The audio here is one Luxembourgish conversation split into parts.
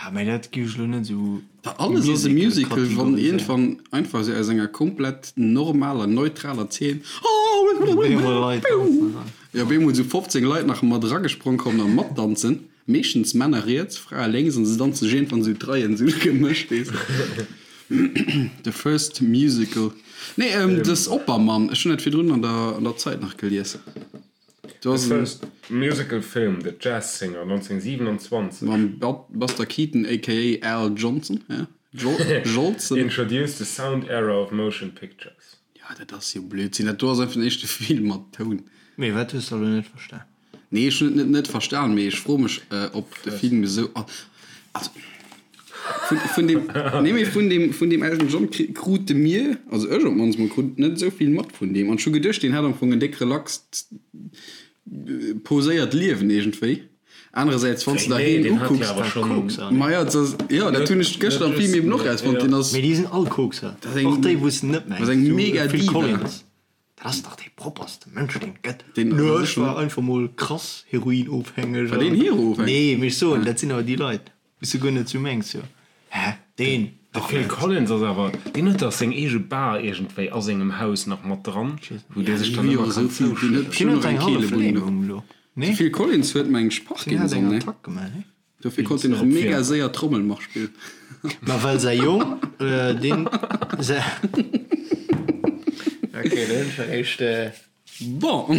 Ja, mä dat géif ech elo net esou Da alles ass e Musical, wann iergendwann einfach esou aus enger komplett normaler, neutraler Zeen jo op eemol esou 15 Leit nach mat eragesprong kommen a matdanzen, meeschtens Männer riets, Frae lénks, an se danze sech iergendwann esou d'Reien esou gemëscht, weess de. The first musical. Nee, dës Oppermann, ech hunn dat virdrun an der an der Zeit nach gelies. Do ass The en. first musical film, The Jazz Singer, 1927. Mam Buster Keaton aka Al Johnson, ja? Jolson. Introduced the sound era of motion pictures. Ja, dat ass jo Blödsinn. Dat do ass einfach den éischte Film mat Toun. Mee wat hues de elo net verstan? Nee, ech hunn et net net verstan, mee ech froe mech, ob de Film esou. Also, vun, vun deem, nee, mee vun deem, vun deem Elton John kri, krute mir, also ech op d'mannst mol, krut net esou vill mat vun deem. An ech hu geduecht, deen hätt am Fong en déck relaxt, poséiert Liewen iergendwéi. Anerersäits, wann s de der Nee, heen deen hat jo ukucks, awer schonn. Kokser, ne? Ma ja, dat ass, jo, dat hunn ech gëschter am Film eben och erausfonnt, deen ass. Mee déi sinn all Kokser, Dat ass eng, och déi wou s de net dat ass mengs, eng sou mega Phil Diva. Collins. Dat ass dach dee propperste Mënsch deen et gëtt. Deen Nö, ass ech schon. war einfach mol krass heroinofhängeg War deen an. heroofhängeg? Nee, mee ech soen, dat sinn awer déi Leit, wou s du guer net sou mengs, jo, hä, deen De dach Phil net. Collins ass awer, deen huet dach seng eege Bar iergendwéi a sengem Haus nach mat dran, wou Ja, dee sech déi dann hu jo ëmmer esou kann vill, deen huet zouschëdden. Deen bestimmt huet och eng eng hallef Keelebunn do. Lähmung elo, De nee? Phil Collins huet meng ech Deen hat Parkinson, eng ne? Attack gemaach, nee? Dofir konnt hien och mega séier Trommelmarsch spillen. Ma well säi Jong, deen säi. Ok, do hunn ech eréischt. Bon.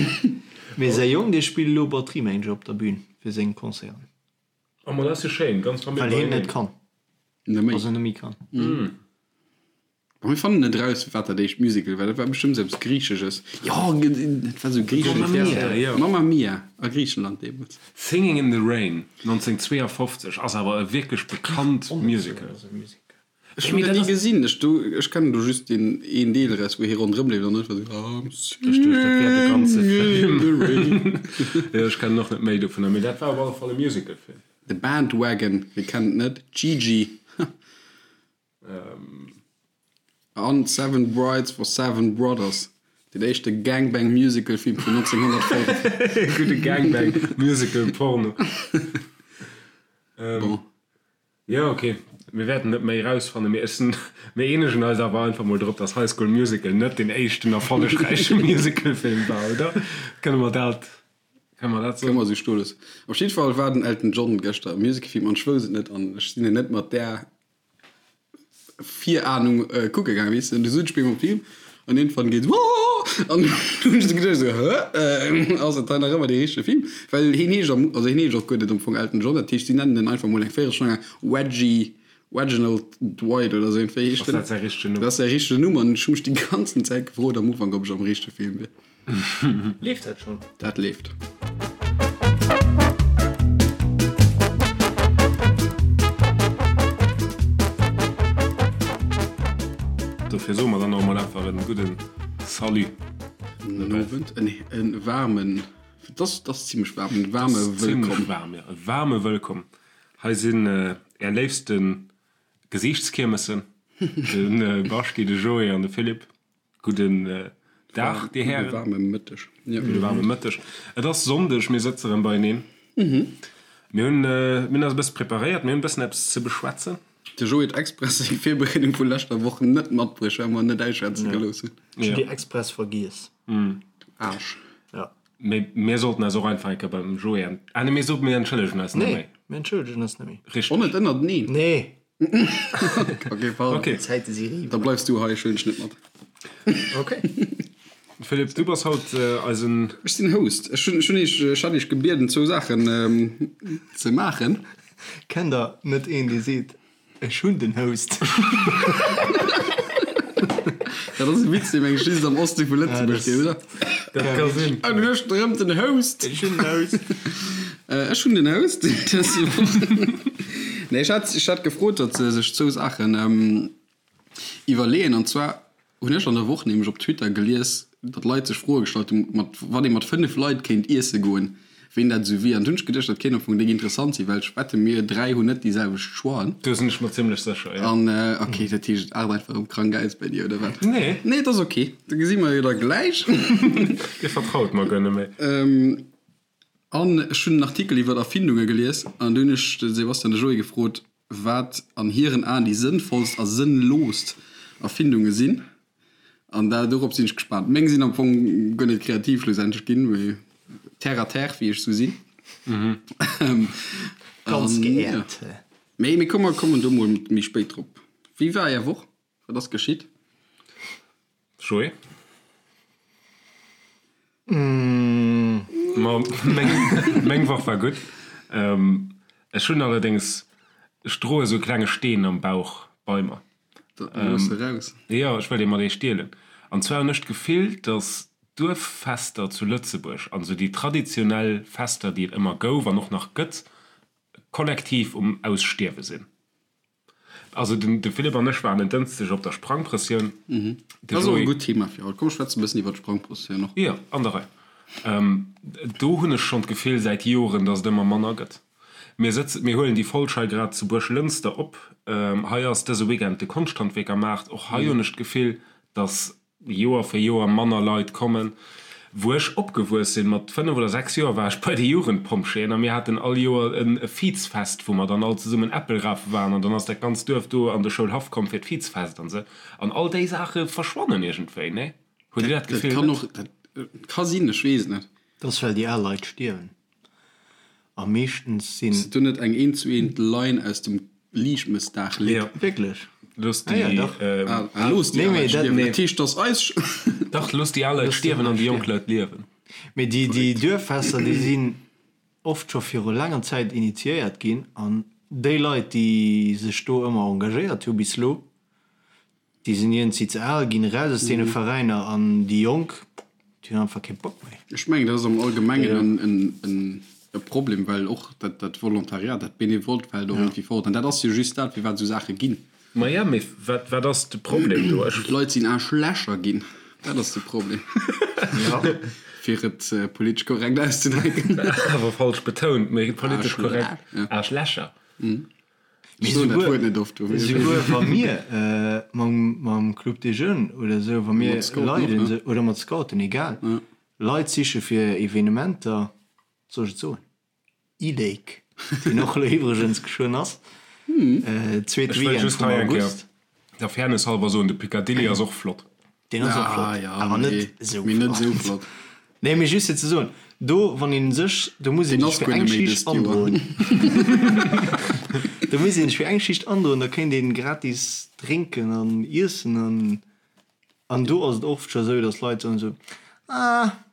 Mee säi Jong, dee spillt elo Batterie, mengen ech, op der Bühn fir seng Concerten. Oh, ma dat ass jo schéin, ganz Famill Well hien beieneen. net kann. Net méi. Also net méi kann. Bon, mir fannen net eraus, wat dat éischt Musical war. Dat war bestëmmt eppes Griichesches. Jo, dat war sou griichesch. Mamma Mia, jo. Mamma Mia a Griichenland deemools. Singing in the Rain, 1952, ass awer e wierklech bekannt Musical. Ech hunn dat ni gesinn. Ech do, ech kennen do just deen een Deel eraus, wou hie ronderëm leeft an einfach sou I'm Ech duecht, dat wär de ganze singing in Film. the rain. Jo, ech kennen och net méi dovunner, mee dat war op alle Fall e Musicalfilm. The Bandwagon, wie kennt et net? Gigi. An Seven Brides for Seven Brothers, deen éischte Gangbang-Musical-Film vun 1905. Gudde Gangbang-Musical-Porno. Bon. Jo, ok, mir wäerten net méi erausfannen, mee ech sinn, mir eenegen eis awer einfach mol drop, dass High School Musical net deen éischten erfollegräiche Musicalfilm war, oder? Kënne mer dat, kënne mer dat Kënne soen? mer esou stoe loossen. Op jidde Fall war den Elton John gëschter am Musicalfilm an ech wousst et net an ech sinn en net mat där Virahnung kucke gaangen, weess de, du sot ech bin am Film an iergendwann geet Wooh an du hunn ech esou geduecht esou hä ass dat hei nach ëmmer dee richtege Film? Well hien heescht am, also hien heescht och guer net am Fong Elton John, dat heescht si nennen en einfach mol eng Véierelstonn laang Reggie, Reginald Dwight oder esou iergendwéi heescht Ass en. dat säi richtegen Numm? Dat ass säi richtegen Numm an ech hu mech déi ganzen Zäit gefrot am Ufank ob ech am richtege Film wier. Leeft dat schon? Dat leeft. Dofir soe mer dann och emol einfach en gudden Salut. Gudden Owend, nee, en waarmen, et ass, et ass zimlech waarm, en waarme Et ass zimlech Wëllkomm. waarm, jo, e waarme Wëllkomm. Hei sinn är léifste Gesiichtskiermessen, de Baschti, de Joé an de Philippe. Gudden Dag, Dir Hären. Gudde waarme Mëtteg. Gudde waarme Mëtteg. Et ass Sonndeg, mir sëtze rëm beieneen. Mir hunn, mir hunn eis e bësse preparéiert, mir hunn e bëssen eppes ze beschwätzen. De Joé huet express seng Virbereedung vu leschter Woch net matbruecht, well mer en net ausschwätze gelooss hunn. Ech hunn déi express vergiess. Du Aarsch. Ja. Mee mir sollten eis och einfach eng Kéier beim Joé ent, ah nee, mir soten, mir entschëllegen eis net Nee, méi. mir entschëllegen eis net méi. Richteg. Och net ënnerteneen? Nee. Ok, pardon. Ok. D'Zäite si eriwwer. Da bleifs du hei, ech huelen dech net mat. Ok. Philippe, du bass haut eisen. Ech sinn Host. Ech hunn, ech hunn iech, ech hat iech gebieden, zwou Saachen ze maachen. Kennt der net een, dee seet, Ech hunn den Host? Dat ass e Witz, dee meng ech just am Oste vu Lëtzebuerg geet, oder? Dat ka sinn. An du hues erëm den Host. Ech hunn den Host. Ech hunn den Host. Nee, ech hat, ech hat gefrot, datt se sech zwou Saachen iwwerleeën. An zwar hunn ech an der Woch nämlech op Twitter gelies, datt Leit sech Froe gestallt hunn, mat wann ee mat 5 Leit kéint iesse goen, ween dat esou wier. An du hunn ech geduecht, dat kéint am Fong déck interessant sinn, well ech wette mir 3 hunn net déi selwecht Choixen. Do sinn ech mer zimmlech sécher, jo. An ok, dat heescht et aart einfach erëm krank aus bei dir, oder wat? Nee. Nee, et ass ok, da gesi mer jo da gläich. Dir vertraut mer guer net méi. An ech hunn en Artikel iwwer Erfindunge gelies an du hunn ech de Sebastian de Joé gefrot. wat an hiren Aen déi sënnvollst a sënnloost Erfindunge sinn. An da dorop sinn ech gespaant. Meng sinn am Fong guer net kreativ schlussendlech ginn, mee terre à terre, wéi ech sou sinn. Ganz geehrt. Mee mir kommen kommen do mol méi spéit drop. Wéi war är Woch? Wat ass geschitt? Joé? Ma meng, meng Woch war gutt. Ech hunn allerdéngs, ech droe sou e klenge Steen am Bauch bei mer. Dat looss eraus. Jo, ech wëll dee mat iech deelen. An zwar hunn ech d'Gefill, datt d'Duerffester zu Lëtzebuerg an esou déi traditionell Fester, déi et ëmmer gouf an och nach gëtt, kollektiv um Ausstierwe sinn. Also den de Philippe an ech waren en Dënschdeg op der Sprangprëssioun. Dat ass och e gutt Thema fir haut. Komm, schwätze e bëssen iwwer d'Sprangprëssioun och. Jo, an der Rei. Do hunn ech schonn d'Gefill säit Joren, datt et ëmmer manner gëtt. Mir sëtzen, mir huelen déi Folg hei grad zu Buerglënster op. Hei ass dëse Weekend de Konschthandwierkermaart. Och hei hunn ech d'Gefill, datt Joer fir Joer manner Leit kommen. Wou ech opgewuess sinn, mat 5 oder 6 Joer, war ech bei de Jugendpompjeeën a mir haten all Joer e Vizfest, wou mer dann all zesummen Äppel rafe waren an dann ass dat ganzt Duerf do an de Schoulhaff komm fir d'Vizfest an sou. An all déi Saache verschwannen iergendwéi, nee? Hutt Dir dat Gefill net? Dat ka sinn, ech weess et net. Dat ass well déi al Leit stierwen a meeschtens sinn. Ass dat do net eng eent zu eent Line aus dem Liichtmëssdag-Lidd? Jo. Wierklech? Looss déi Ah jo, dach. Ah, looss déi Nee, al mee Leit dat, stierwen. nee. Dat heescht, dass eis. Dach, looss déi al Leit stierwen an déi jonk Leit liewen. Mee déi, déi Duerffester, déi sinn oft scho viru laanger Zäit initiéiert ginn an déi Leit, déi sech do ëmmer engagéiert hu bis elo, Déi sinn iergendwéi ze al ginn, eraus aus deene Veräiner an déi Jonk, déi hunn einfach kee Bock méi. Ech mengen, dat ass am Allgemengen e Problem, well och dat Volontariat, dat Benevolt fält och iergendwéi fort. An dat ass jo just dat, firwat esou Saache ginn. Maja, mee wat ass de Problem do? Ech. D'Leit sinn Aarschlächer ginn, dat ass de Problem, fir et politesch korrekt auszedrécken. Awer falsch betount, mee politesch korrekt, Aarschlächer. Ech soen dat Wuert net oft. Esouguer wa mir mam Club des Jeunes oder esou, wa mir Leit, oder mat Scouten, egal, Leit siche fir Evenementer, soll ech et soen, E-Lake, deen och elo iwwregens geschwënn ass, zweete Ech wëll Weekend just vum hei eng Kéier August. der Fairness halber soen, de Picadilly ass och flott. Deen ass och flott, awer net esou Mee net esou flott. flott. Nee, mee just fir ze soen, do wann een sech, do muss een Deen sech ass fir guer eng net méi Schicht dëst Joer. androen. Do muss een sech fir eng Schicht androen, da kéint een gratis drénken an iessen an an do ass et oft scho sou, datt Leit soen esou, ah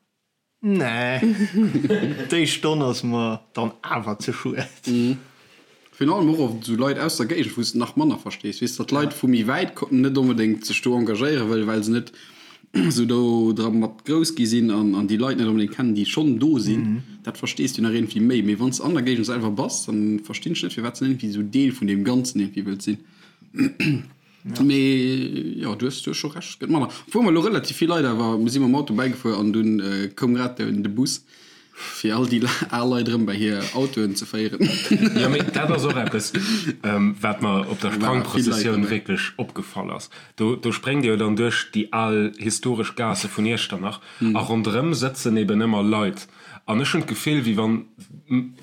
Nee, déi Stonn ass mer dann awer ze schued. Virun allem och oft esou Leit aus der Géigend, wou s de nach manner verstees, weess, datt Leit vu méi wäit net onbedéngt sech do engagéiere wëllen, well se net esou do dra mat grouss gi sinn an an déi Leit net onbedéngt kennen, déi schonn do sinn. Dat verstees du nach iergendwéi méi. Mee wann s de an der Géigend selwer bass, dann verstinn ech net, firwat s de net iergendwéi esou Deel vun deem Ganzen iergendwéi wëlls sinn. Mee jo, du hues scho Recht, et gëtt manner. Obwuel mer elo relativ vill Leit awer, mir si mam Auto bäigefuer an dunn koum grad de Bus, fir all déi al Leit erëm bei hir Autoen ze féieren. Jo, mee dat ass och eppes, wat mer op der Sprangprëssessioun wierklech opgefall ass. Do, do spréngt Dir jo dann duerch déi al historesch Gaasse vun Iechternach a ronderëm sëtzen eben ëmmer Leit. An ech hunn d'Gefill, wéi wann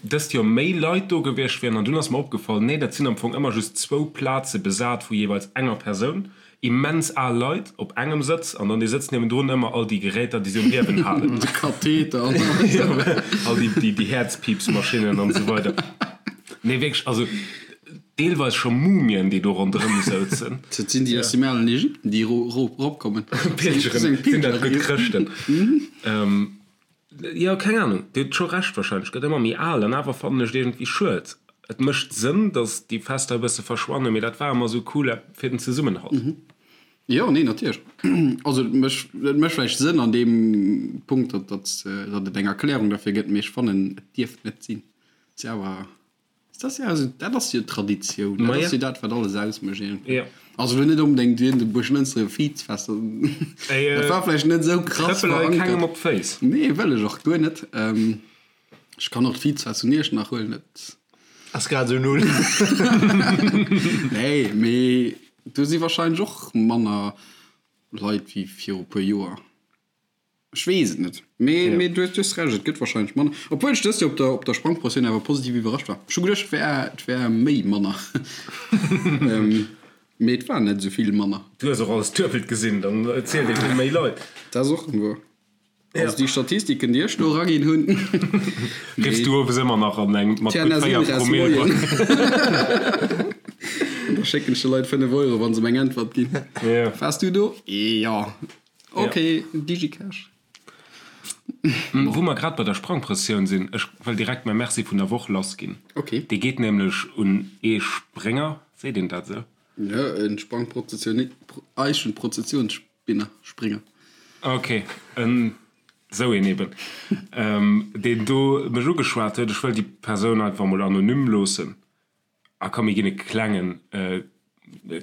dëst Joer méi Leit do gewiescht wieren. An dunn ass mer opgefall, nee, dat sinn am Fong ëmmer just zwou Plaze besat vu jeeweils enger Persoun. Immens al Leit op engem Sëtz an dann dee Sëtz niewendrun ëmmer all déi Geräter, déi se um Liewen halen. De Katheter an alles. All déi, déi Häerzpiipsmaschinnen an esou weider. Nee, wierklech, also deelweis scho Mumien, déi do ronderëm souzen. Dat sinn déi aus dem alen Ägypten, déi eropkommen. Pilgeren, sinn dat gutt Chrëschten? Jo, keng Ahnung, Dir hutt scho Recht wahrscheinlech, gëtt ëmmer méi al an awer fannen ech et iergendwéi schued. Et mécht Sënn, datt déi Fester e bësse verschwannen, mee dat war ëmmer esou cool fir den Zesummenhalt. Jo, nee, natierlech. Also et mécht, et mécht vläicht Sënn an deem Punkt, datt, datt, datt et eng Erklärung derfir gëtt, mee ech fannen, et dierft net sinn. Et ass awer. Dat ass jo, also dat ass jo Traditioun, dat ass jo dat, wat alles ausmécht iergendwéi. Jo. Also elo net onbedéngt wien de Buerglënster Vizfest, dat war vläicht net esou krass Trëppel hei verankert. kengem op d'Féiss. Nee, wëll ech och guer net. Ech kann och d'Vizfest vun Iechternach huelen, dat. Ass grad esou null. Nee, mee do si warscheinlech och manner Leit wéi viru puer Joer. Ech weess et net. Mee, mee du hues, du hues Recht, et gëtt wahrscheinlech manner. Obwuel ech dëst Joer op der, op der Sprangprëssioun awer positiv iwwerrascht war. Ech hu geduecht, et wär, et wär méi manner. Mee et war net esou vill manner. Du hues och alles duebelt gesinn, dann zielt ee vill méi Leit. Dat ass och wuer. Also déi Statistiken, déi ech do eraginn hunn. Riffs du owes ëmmer nach an eng mat gutt 4 Promille. An da schécken ech de Leit 5 Euro, wa se mer eng Äntwert ginn. Waars du do? Jo. Ok, Digicash. Wou mer grad bei der Sprangprëssioun sinn, ech wëll direkt mäi Merci vun der Woch lassginn. Dee geet nämlech un ee Sprénger, seet een dat esou? Jo, e Sprangprozessioun, Eichenprozessionsspinner, Springer. Ok, en esou een eben, deen do mech ugeschwat huet. Ech wëll déi Persoun einfach mol anonym loossen. A komm, mir ginn e klengen,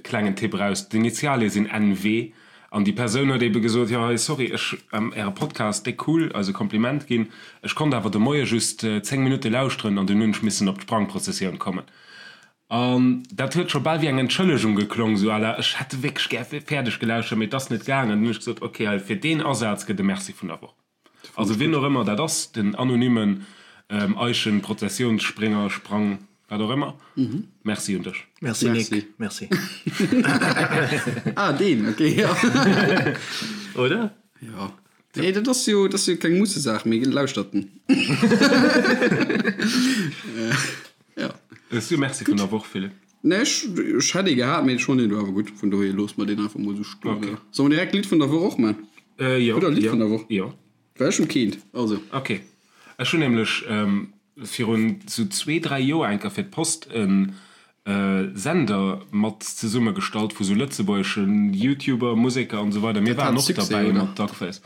klengen Tipp eraus, D'Initialie sinn NW. An déi Persoun huet ebe gesot, jo hei, sorry, ech, Äre Podcast, déck cool, eis e Kompliment ginn, ech konnt awer de Moie just 10 Minutte lauschteren an dunn hunn ech missen op d'Sprangprozessioun kommen. An dat huet scho bal wéi eng Entschëllegung geklong, esou à la, ech hätt wierklech gär fäerdeg gelauschtert, mee et ass net gaangen. Dunn hunn ech gesot, ok, hei, fir deen Asaz gëtt e Merci vun der Woch. Also wien och ëmmer dat ass, den anonymen Eischen, Prozessionsspringer, Sprang, wat och ëmmer, Merci un dech. Merci Nick, merci. Ah deen, ok, jo. Oder? Jo. Nee, dat ass jo, dat ass jo keng Mussesaach, mee lauschtert en. Jo. Hues du e Merci vun der Woch, Philippe? Nee, ech, ech hätt ee gehat, mee ech fannen deen do awer gutt, vun dohier loosse mer deen einfach mol esou stoen. Okay. Solle mer direkt d'Lidd vun der Woch och man? Äh, jo. Hutt der e Lidd jo, vun der Woch? Jo. Well ech hunn keent, also. Okay. Ech hunn nämlech virun sou zwee, dräi Joer eng Kéier fir d'Post e Sender mat zesummegestallt vu sou lëtzebuergeschen Youtuber, Museker an esou weider. Mir Dat waren hat och Succès, derbäi oder? mat Duckface.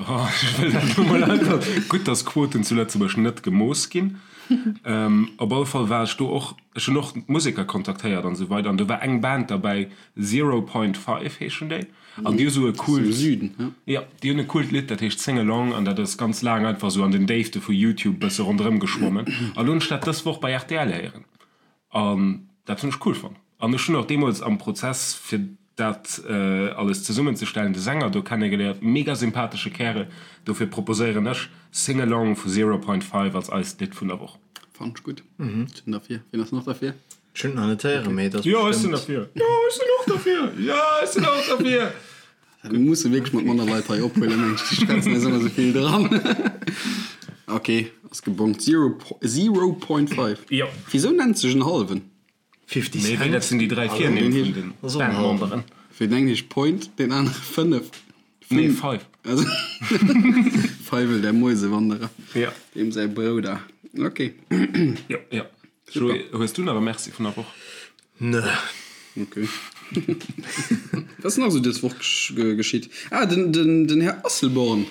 Oh, ech wëll dat elo mol einfach. Gutt, dass Quoten zu Lëtzebuerg net gemooss ginn. Op alle Fall war ech do och, ech hunn och Museker kontaktéiert an esou weider an do war eng Band derbäi, Zero Point Five heeschen déi an déi hu sou e coolt, jo, déi hunn e coolt Lidd, dat heescht Sing Along an dat ass ganz laang einfach sou an den Déifte vu Youtube bësse ronderëm geschwommen an lo hunn ech dat dës Woch bei rtl héieren an dat hunn ech cool fonnt an ech hunn och deemools am Prozess fir dat alles zesummenzestellen, de Sänger do kennegeléiert, mega sympathesche Kärel, dofir proposéieren ech Sing Along vu Zero Point Five als eist Lidd vun der Woch. Fannen ech gutt. Ech sinn derfir. Wien ass nach derfir? Ech hunn et nach net héieren, mee et ass Jo, ech sinn bestëmmt. derfir. Jo, ech sinn och derfir. Jo, ech sinn och derfir. Mir musse wierklech mat manner Leit hei ophuelen, mengen ech. Déi schwätzen eis ëmmer esou vill dran. Ok, ass gebongt. Zero, Zero Point Five. Jo. Wisou nennt sech en hallwen? 50 Mee Cent? dat sinn déi 3 Virnimm vun den Bandmemberen. Fir den engen heescht Point, deen anere 5. Nee, Five. Also Feiwel, der Mäusewanderer. Ja. Deem säi Brouder. Ok. Jo, jo. Joé, hues du nach e Merci vun der Woch? Nö. Ok. Wat ass nach esou dës Woch geschitt? Ah, den, den, den Här Asselborn.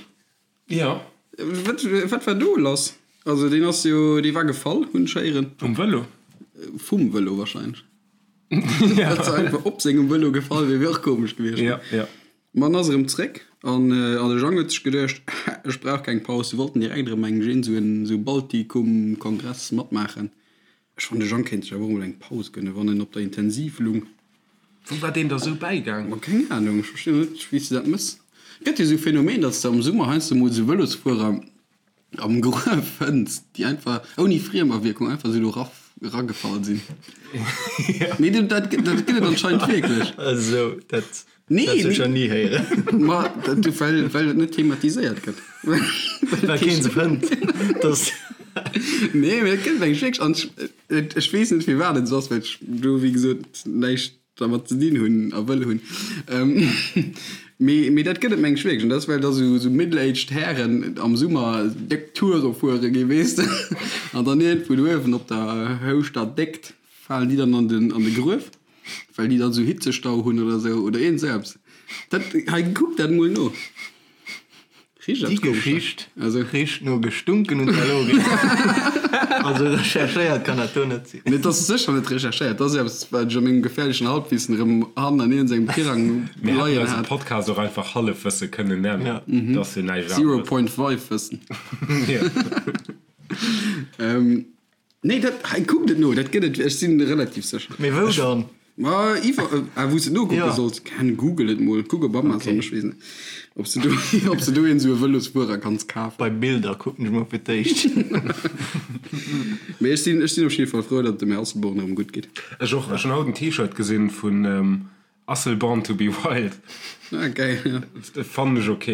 Jo. Wat, wat war do lass? Also deen ass jo, dee war gefall, hunn ech héieren. Vum Vëlo? Vum Vëlo wahrscheinlech. Ja. Datt se einfach op sengem Vëlo gefall wier, wier och komesch gewiescht. Ja, ja. Ma en ass erëm zréck an an de Jang huet sech geduecht, ech brauch keng Paus. Se wollten direkt erëm eng Gin, sou en sou Baltikum-Kongress matmaachen. Ech fannen de Jang kéint sech awer och mol eng Paus gënnen, wann en op der Intensiv lung. Wou war deen da sou bäigaang? Ma keng Ahnung, ech verstinn och net wéi s de dat mëss. Gëtt jo sou Phänomen, datt s de am Summer heiansdo mol sou Vëlosfuerer am Gruef fënns, déi einfach ouni Friemawierkung einfach sou do ragefall sinn. Nee, dat gëtt et anscheinend wierklech. Esou, dat Nee, dat nee. ech ni héieren. Ma dat, well, well et net thematiséiert gëtt. Well keen se fënnt. Dass. Nee, mee et gëtt eng wierklech an ech, ech weess net firwat et esou ass, well ech do wéi gesot näischt dermat ze dinn hunn a wëll hunn. Mee, mee dat gëtt et meng ech wierklech. An dat ass well da sou, sou middle-aged Hären am Summer déck Toure fuere gi weess de. An dann iergendwou do uewen op der Houschter Déckt falen déi dann an den, an de Gruef. Well déi dann sou Hitzestau hunn oder sou oder iergend sou eppes. Dat hei kuck dat mol no. Richt Déi Geschicht also richt no gestunken und verlogen. Also recherchéiert kann dat do net sinn. Nee, dat ass sécher net recherchéiert. Dat ass eppes wat ech a mengem gefährlechen Halbwissen erëm hannen an iergend engem Tirang Mir hätten leien eise hat. Podcast och einfach Hallefwësse kënnen nennen. Dat ass jo näischt Zero aneres. point five Wëssen. Jo. Nee, dat hei kuckt et no, dat gëtt et, ech sinn relativ sécher. Mee wou dann? Ma iwwer, ah, wou s de nokucke Ja. solls, ken Google et mol, kuck op Amazon, ech weess net, ob s de do, ob s de do een esou e Vëlosfuerer kanns kafen. Bei Bilder kucken ech mol fir d'éischt. Mee ech sinn, ech sinn op jidde Fall frou, datt et dem Här Asselborn erëm gutt geet. Ech och. Ech hunn haut en T-Shirt gesinn vun Asselborn to be wild. Ah, geil, ja. Fannen ech ok.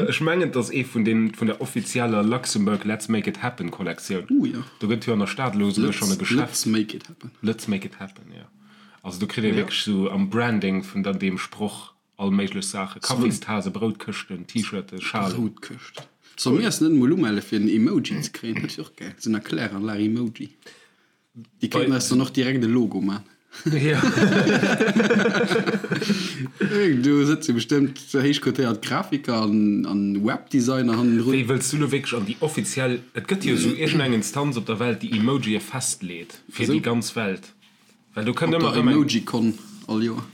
Ech mengen et ass ee vun den, vun der offizieller Luxembourg Let's Make It Happen Kollektioun. Uh, ja. Do gëtt jo an der Stad elo esouguer schonn e Geschäft. Let's Make It Happen. Let's Make It Happen, jo. Also do kritt ee wierklech esou am Branding vun der deem Sproch all méiglech Saachen, Kaffistasen, Broutkëschten, T-Shirten, Schalen. Broutkëscht. Solle mir eis net emol umelle fir en Emoji ze kréien? Dat wier och gäil, esou en Erkläranlag-Emoji. Déi kéinten eis dann och direkt e Logo man. Jo. Do sëtze bestëmmt héich cotéiert Grafiker an Webdesigner hannendrun. Wéi, wëlls du lo wierklech an déi offiziell, et gëtt jo esou iergendeng Instanz op der Welt, déi Emojië festleet fir déi ganz Welt. Well do kënnt Op ëmmer der erëm eng. Emojicon all Joer.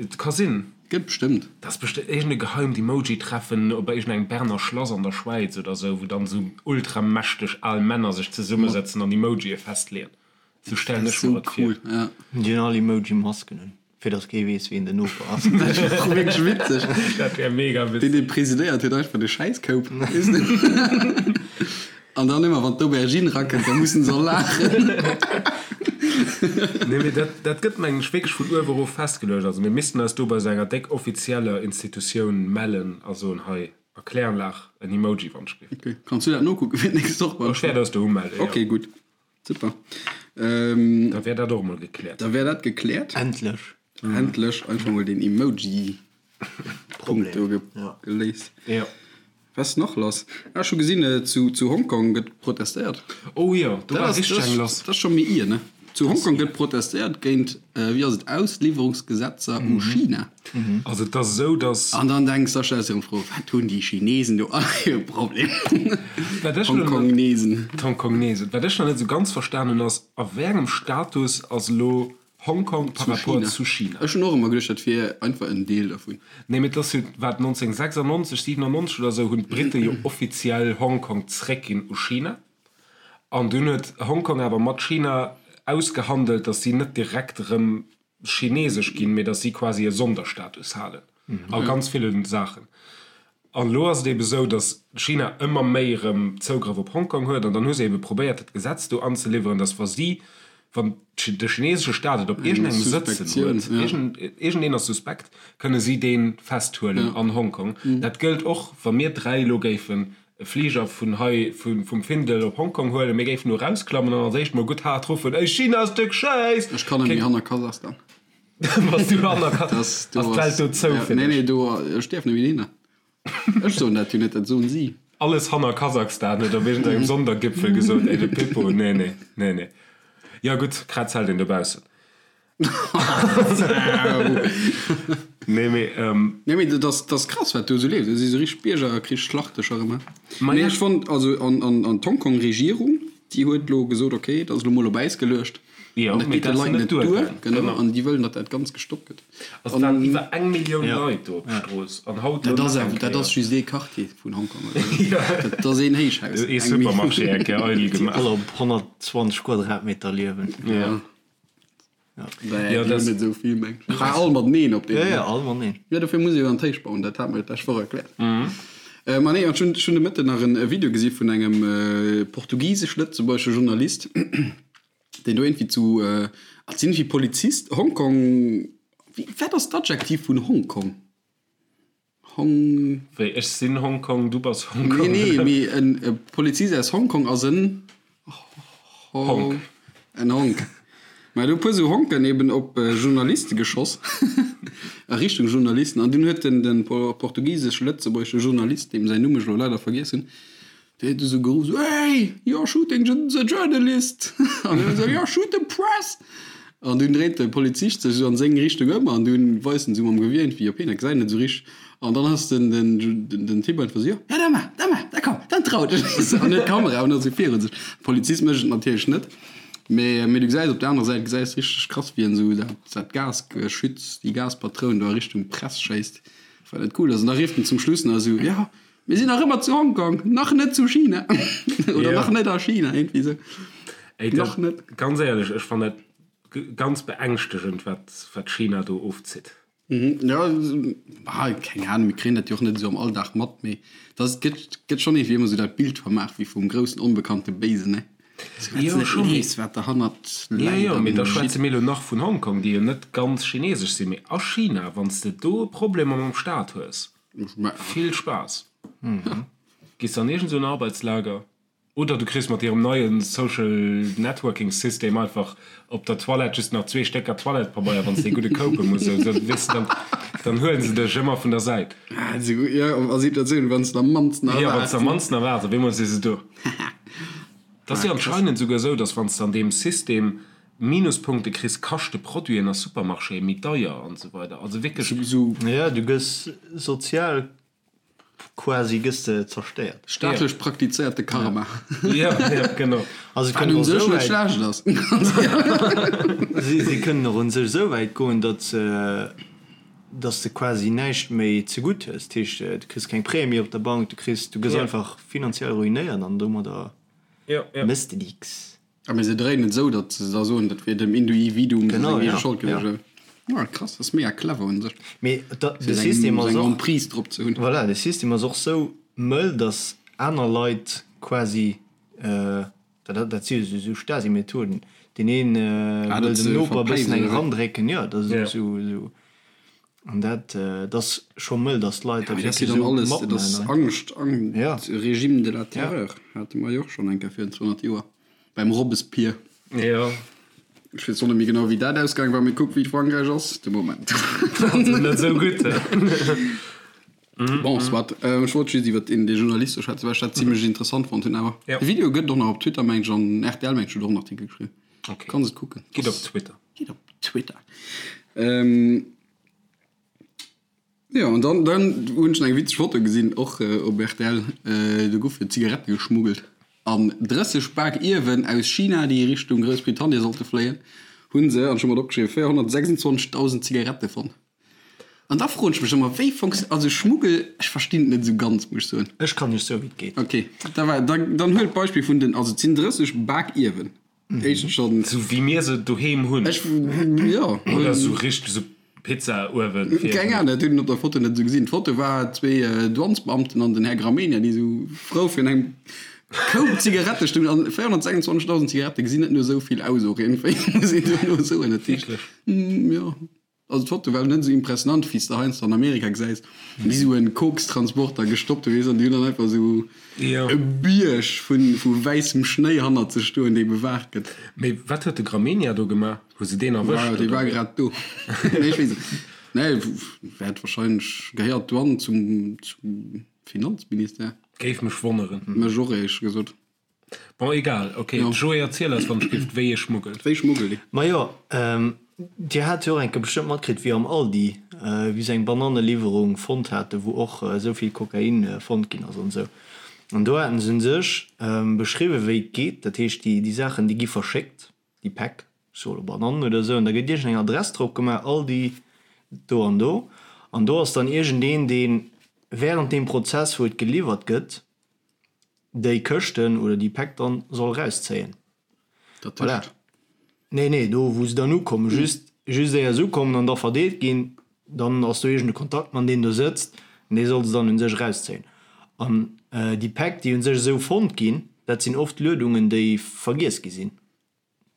Et ka sinn. Gëtt bestëmmt. Dat ass bestëmmt iergend e geheimt Emoji-Treffen op iergendengem Berner Schlass an der Schwäiz oder sou, wou dann sou ultramächteg al Männer sech zesummesëtzen an Emojië festleeën. Sou stellen ech mer et vir. Cool, ja. Déi hunn all Emoji-Masken un, fir datt kee weess, wien den Noper ass. Dat wär och wierklech witzeg. Dat wär mega Deen, witzeg. dee presidéiert, huet einfach de Schäisskoup, weess de. An dann ëmmer wann d'Aubergine rakënnt, da mussen se all laachen. Nee, mee dat, dat gëtt mengen ech wierklech vun uewe erof festgeluecht. Also mir missten eis do bei esou enger déck offizieller Institutioun mellen a soen, hei, Erkläranlag, en Emoji wann ech géif. Ok, kanns du dat nokucken fir d'nächst Woch beim Ech wäert eis do umellen, jo. Ok, gutt, super. Da wär dat och emol gekläert. Da wär dat gekläert. Endlech. Endlech einfach mol den Emoji Punkt do geléist. Jo. Was ass nach lass? Ah, ech hu gesinn, zu zu Hongkong gëtt protestéiert. Oh jo, do war richteg eng lass. Dat ass scho méi ier, ne? Zu Hongkong gëtt protestéiert géint, wéi ass et, Ausliwwerungsgesetzer u China. Also et ass esou, datt. An dann denks da stells de erëm d'Fro, wat hunn déi Chinesen do all fir e Problem? D'Hongkongnesen. D'Hongkongnesen. Wat ech nach net esou ganz verstan hunn, ass, a wéi engem Status ass elo Hongkong par rapport zu China. Ech hunn och ëmmer geduecht, dat wier einfach en Deel dervun. Nee, mee et ass jo, wat, 1996, 97 oder esou hunn d'Brite jo offiziell Hongkong zréckginn u China. An dunn huet Hongkong awer mat China ausgehandelt, datt si net direkt erëm chinesesch ginn, mee datt si quasi e Sonderstatus halen a ganz ville Saachen. An elo ass et ebe sou, datt China ëmmer méi erëm Zougrëff op Hongkong huet. An dann hu se ebe probéiert, dat Gesetz do anzeliwweren, datt wa si, wann de chinesesche Staat et op iergendengem sëtzen huet, iergendeen ass suspekt, kënne si dee festhuelen an Hongkong. Dat gëllt och, wa mir 3 elo géifen e Fliger vun hei, vum Findel op Hongkong huelen, mir géifen do erausklammen an als éischt mol gutt haart ruffen, Ey China ass de Schäiss! Ech kann net méi hanner Kasachstan. Bass du hanner Ka ass d'Welt do zou fir dech? Nee, nee, do, ech däerf net méi dohinner. Ech soen dat jo net, dat soen si. Alles hanner Kasachstan huet op iergendengem Sondergipfel gesot, ey de Pippo, nee, nee, nee, nee. Jo gutt, Krätz hält een dobaussen. Nee, mee. Nee, mee dat ass, dat ass krass, wat do esou leeft. Dat si sou richteg Biergerkrichsschlachtecher ëmmer. Mee ech fonnt, also, an, an, an d'Hongkong-Regierung, déi huet elo gesot, okay, dat ass elo mol op Äis geluecht. Jo, An dat mee geet de dat ass Leit net net duer, duergaangen. genau, Genau. an déi wëllen, datt dat Ganzt gestoppt gëtt. Also et waren iwwer eng Millioun Leit do op d'Strooss an haut Dat elo ass nach eng awer, dat Kéier. ass just ee Quartier vun Hongkong, oder? Dat ass een Héichhaus. Ee Eng Supermarché Millioun. eng Kéier eidel Déi gemaach. all op 120 Quadratmeter liewen. Ja. Ja, Ja, déi dat hunn net esou vill, meng ech. Ah, all mateneen op Ja, deem. ja, all mateneen. Ja, dofir muss ee jo an d'Héicht bauen, dat hat mer jo d'lescht Woch erkläert. Ma nee, an ech hunn, ech hunn de Mëtten nach en Video gesi vun engem portugisesch-lëtzebuergesche Journalist, deen do iergendwéi zu, ah, et sinn iergendwéi Polizist, Hongkong, wéi, wat ass d'Adjektiv vun Hongkong? Hong. Wéi, ech sinn Hongkong, du bass Hongkong? Nee, nee, mee en Polizist aus Hongkong ass en Honk. En Honk. Mä do e puer sou Honken eben op Journaliste geschoss, a Richtung Journalisten. An dunn huet den, den portugisesch-lëtzebuergesche Journalist, deem säin Numm ech elo leider vergiess hunn, Dee huet esou geruff, esou, Hey, you're shooting the journalist! An hien esou, You're shooting press! An dunn dréit de Polizist sech esou an seng Richtung ëm an dunn weist en esou mam Gewier iergendwéi op hien, dat gesäit en net esou richteg. An dann ass den, den, den Typ einfach esou, Jo, ja, da maach, da maach, da komm, dann trau dech! An huet d'Kamera awer nach esou virun sech. De Polizist mécht et natierlech net, mee, mee du gesäis op der anerer Säit, gesäis richteg krass, wéi en esou dat, dat Gasgeschütz, déi Gaspatroun do a Richtung Press schéisst, wat net cool ass. An da rifft en zum Schluss nach esou, Jo, Mir sinn nach ëmmer zu Hongkong, nach net zu China. Oder Ja. nach net a China, irgendwie sou. Ey, Nach dat, net. ganz éierlech, ech fannen dat. ganz beängschtegend, wat wat China do ofzitt. Jo, keng Ahnung, mir kréien dat jo och net esou am Alldag mat, mee dat gëtt gëtt schonn iergendwéi ëmmer esou dat Bild vermaach wéi vum groussen onbekannte Béisen, ne? Sou wat s Jo, net scho, mee weess, wat derhannert jo, läit jo, mee an da schwätze geschitt. mir elo nach vun Hongkong, déi jo net ganz chinesesch sinn, mee a China, wann s de do Problemer mam Staat hues, vill Spaass, gees de an iergend esou en Arbeitslager. Oder du kriss mat hirem neie Social Networking System einfach op der Toilette just nach zwee Stécker Toilettepabeier, wann s de ee gudde koupe muss. Esou, weess de, dann, dann huelen se dech ëmmer vun der Säit. Jo, a Situatiounen, wann s de am mannsten Jo, wann s erwaarts. de am mannsten erwaarts, op eemol si se do. Et ass jo anscheinend esouguer esou, dass wann s de an deem System Minuspunkte kriss, kaschte Produiten a Supermarchéë méi deier an esou weider. Also wierklech. Jo, du gëss sozial Quasi gëss de zerstéiert. Staatlech praktizéierte Karma. Jo, jo, genau. Also Wat kënnen un och sech esou net wäit, schlecht ass. si, si kënnen och un sech esou wäit goen, datt se, datt s de quasi näischt méi zegutt hues. Dat heescht, du kriss keng Prêtë méi op der Bank, du kriss, du gëss Ja. einfach finanziell ruinéiert an domadder Jo, jo. méchs de nix. A mee se dréinen et esou, datt se da soen, dat wier dem Induividuum Genau, seng eege ja, Schold ja. gewiescht. Ah, krass, dat ass mega clever un sech, Mee da, fir de seng, System ass seng och, Emprise drop ze hunn. voilà, de System ass och sou mëll, datt aner Leit quasi, dat, dat si jo sou Stasi-Methoden, deen een Ah, wëll datt dem se Noper e bëssen verpléisen, eng oder wéi? erandrécken, jo, dat ass Ja. esou, esou, an dat, dat ass scho mëll, datt d'Leit Ja, dat mee dat ass jo wierklech dann esou alles, dat ass matmaachen. Angscht, Ang, Ja. Régime de la Ja. terreur, hate mer jo och schonn eng Kéier virun 200 Joer. Beim Robespierre. Jo. Ech weess och net méi genau wéi dat ausgaang war, mee kuck wéi et Frankräich ass de Moment. Also net esou gutt. Bon, soit. Ech wollt just iwwer deen dee Journalist do schwätzen, well ech dat zimlech interessant fonnt hunn. Awer Ja. de Video gëtt och nach op Twitter meng ech an rtl meng ech huet och en Artikel geschriwwen. Okay. Kanns et kucken. Gitt op Twitter. Gitt op Twitter. Jo, an dann, dann hunn ech nach eng witzeg Foto gesinn, och op rtl, do goufe Zigarette geschmuggelt. An 30 Pak Ierwen aus China, déi Richtung Groussbritannien sollte fléien, hu se, an ech hu mer et opgeschriwwen, 426.000 Zigarette fonnt. An da froen ech mech ëmmer, wéi funktio-, also Schmuggel, ech verstinn et net esou ganz, muss ech soen. Ech kann iech soen, wéi et geet. Ok, da war, dann, dann huel d'Beispill vun den, also et sinn 30 Pak Ierwen. Éischtens schonn. Sou wéi mir se doheem hunn. Ech, jo. Oder sou richteg sou Pizza-Uewen. Keng Ahnung, dat hunn een op der Foto net esou gesinn. D'Foto war zwee Douanesbeamten an den Här Gramegna, déi esou frou virun engem Koup Zigarette stoungen. An 426.000 Zigarette gesinn net no esou vill aus och iergendwéi, muss een dono soen. Dat heescht, Wierklech? jo. Also d'Foto war net esou impressionant wéi s de heiansdo an Amerika gesäis, wéi esou en Kokstransporter gestoppt huet, weess, an déi hunn dann einfach esou e Bierg vu wäissem Schnéi hannert sech stoen, dee bewaacht gëtt. Mee wat huet de Gramegna do gemaach? Hu se deen erwëscht? Dee war grad do. Nee, ech weess et net. Nee, wäert wahrscheinlech, gehéiert d'Douane zum Finanzministère? Géif mech wonneren. Mech och, éierlech gesot. Bon, egal, ok. Jo. Joé, erziel eis wann ech giff, wéi ee schmuggelt. Wéi schmuggelt ee? Majo, Dir hat jo och eng Kéier bestëmmt matkritt, wéi am Aldi, wéi se eng Bananneliwwerung fonnt haten, wou och esou vill Kokain fonnt ginn ass an esou. An do haten se un sech beschriwwen, wéi et geet. Dat heescht, déi, déi Saachen, déi gi verschéckt, déi Päck, ech soe lo Banannen oder esou, an da gëtt iergendeng Adress drop gemaach, Aldi do an do. An do ass dann iergendeen, dee während deem Prozess, wou et geliwwert gëtt, déi Këschten oder déi Päck dann soll rauszéien. Dat Voilà. tëscht. Nee, nee, do wou se dann ukommen, just, just éier se ukommen an da verdeelt ginn, dann ass do iergend e Kontaktmann, deen do sëtzt an dee soll se dann un sech erauszéien. An déi Päck, déi un sech esou fonnt ginn, dat sinn oft Luedungen, déi vergiess gi sinn.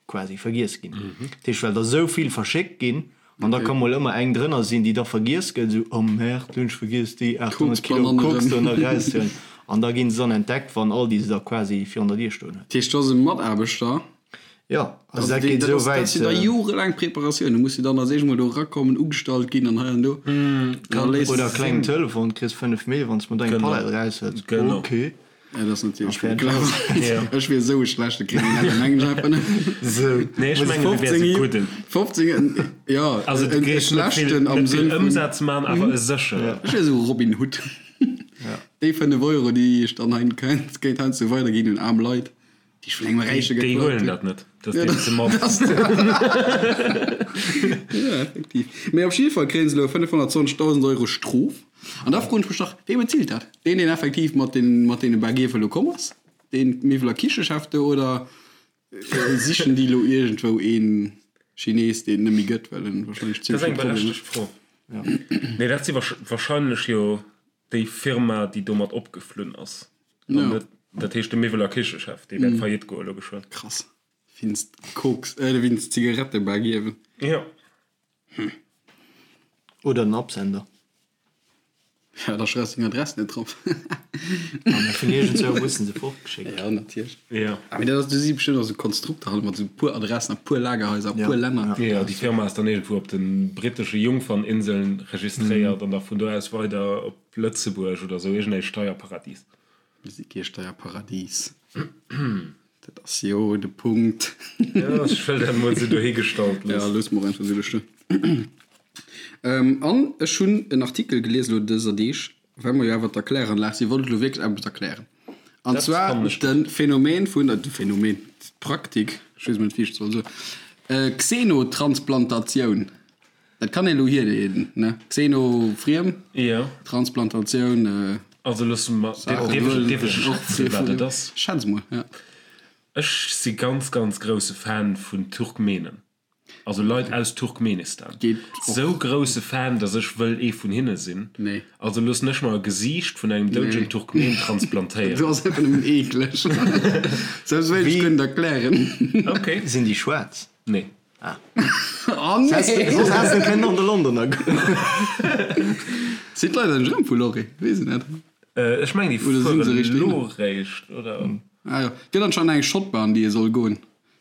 quasi vergiess ginn. Dat heescht, well der esou vill verschéckt ginn, an da ka mol ëmmer eng drënner sinn, déi da vergiess gëtt, esou, oh merde, hunn ech vergiess déi 800 Kilo Koks do nach erauszehuelen. An da ginn se dann entdeckt, wann Aldi se da quasi virun der Dier stoen huet. Dat heescht, do ass e Mataarbechter. Jo, also dat geet esou wäit. Dat sinn da jorelaang Preparatioun. Du muss jo dann als éischt mol do erakommen, ugestallt ginn an hei an do. Oder e klengen Telefon, kriss 5 Mille, wann s de mer do eng Palett eraushëls. Ok. Ja, dat ass natierlech méi clever. Ech wier esou e schlechte Kriminellen, mengen ech einfach net. Sou, nee, ech mengen, du wäers e gudden. 15, jo, Also, du e géifs net vill, schlechten am net vill Sënn vun. Ëmsaz man, awer e sécheren. Ech wier esou Robin Hood. Déi 5 Euro, déi ech dann hei kéint heiansdo weiderginn un aarm Leit, déi ech vun engem Räiche Déi geklaut huelen hunn. dat net. Dat ass deenen ze mann. Ja, effektiv. Mee op jidde Fall kréie se elo 520.000 Euro Strof. An da froen ech mech dach, Wee bezilt dat? Deen, deen effektiv mat den, mat deene Baguefe elo komm ass? Deen Miwwel a Kichechef do? Oder sichen déi elo iergendwou een? Chines, deen et net méi gëtt, well en wahrscheinlech Dat ass zimmlech eng vill Problemer berechtegt Fro. Nee, dat si wahrscheinlech jo déi Firma, déi domat opgeflunn ass. An Ja. net, dat heescht de Miwwel a Kichechef, dee wäert faillite goe lo geschwënn. Krass. Wéinst Koks, äh, wéinst Zigarettebak ierwen. Jo. Oder den Absender. Ja, da schreifs deng Adress net drop. Ah, mä vun iergendzwou mussen se fortgeschéckt Ja, natierlech. Ja. Ah, mee dat ass, do si bestëmmt och sou Konstrukter halt mat sou puer Adressen a puer Lagerhaiser a Ja, puer Länner. ja. Jo, déi Firma ass dann iergendwou op de brittesche Jungferninseln registréiert an da vun do aus weider op Lëtzebuerg oder sou, iergendee Steierparadies. Mir si kee Steierparadies. Dat ass jo de Punkt. Jo, ech wëll dat emol esou dohigestallt Ja, loossen. loosse mer och einfach esou do stoen. An ech hunn en Artikel gelies elo dëser Deeg, well mer jo awer d'Erkläranlag sinn, wollt ech elo wierklech eppes erklären. An Dat zwar fannen ech de gutt. Phänomen vun, de Phänomen, d'Praktik, ech weess emol net, wéi ech et soll soen, Xenotransplantatioun. Dat kann een elo hierleeden, ne? Xeno, friem, Jo. Transplantatioun, Also loosse mer, Saach, dierf ech, dierf ech och schätzen, wat et ass? Schätz mol, ja. Ech si ganz, ganz grousse Fan vun Turkmenen. Also Leit aus Turkmenistan. Geet och. Sou grousse Fan, dass ech wëll ee vun hinne sinn. Nee. Also loossen ech mer e Gesiicht vun engem doudegen Nee. Turkmen transplantéieren. Du ass einfach nëmmen eekleg. Selbst wéilt ech Wéi- guer net erklären. Okay. Sinn déi schwaarz? Nee. Ah. Oh nee! Soss häss de kënnen an de Londoner goen. Sinn d'Leit eigentlech erëm vu Lorry? Weess et net. Ech mengen déi Oder sinn se fueren richteg elo réischt, oder? Ah jo. Gëtt anscheinend eng Schottbar an déi ee soll goen.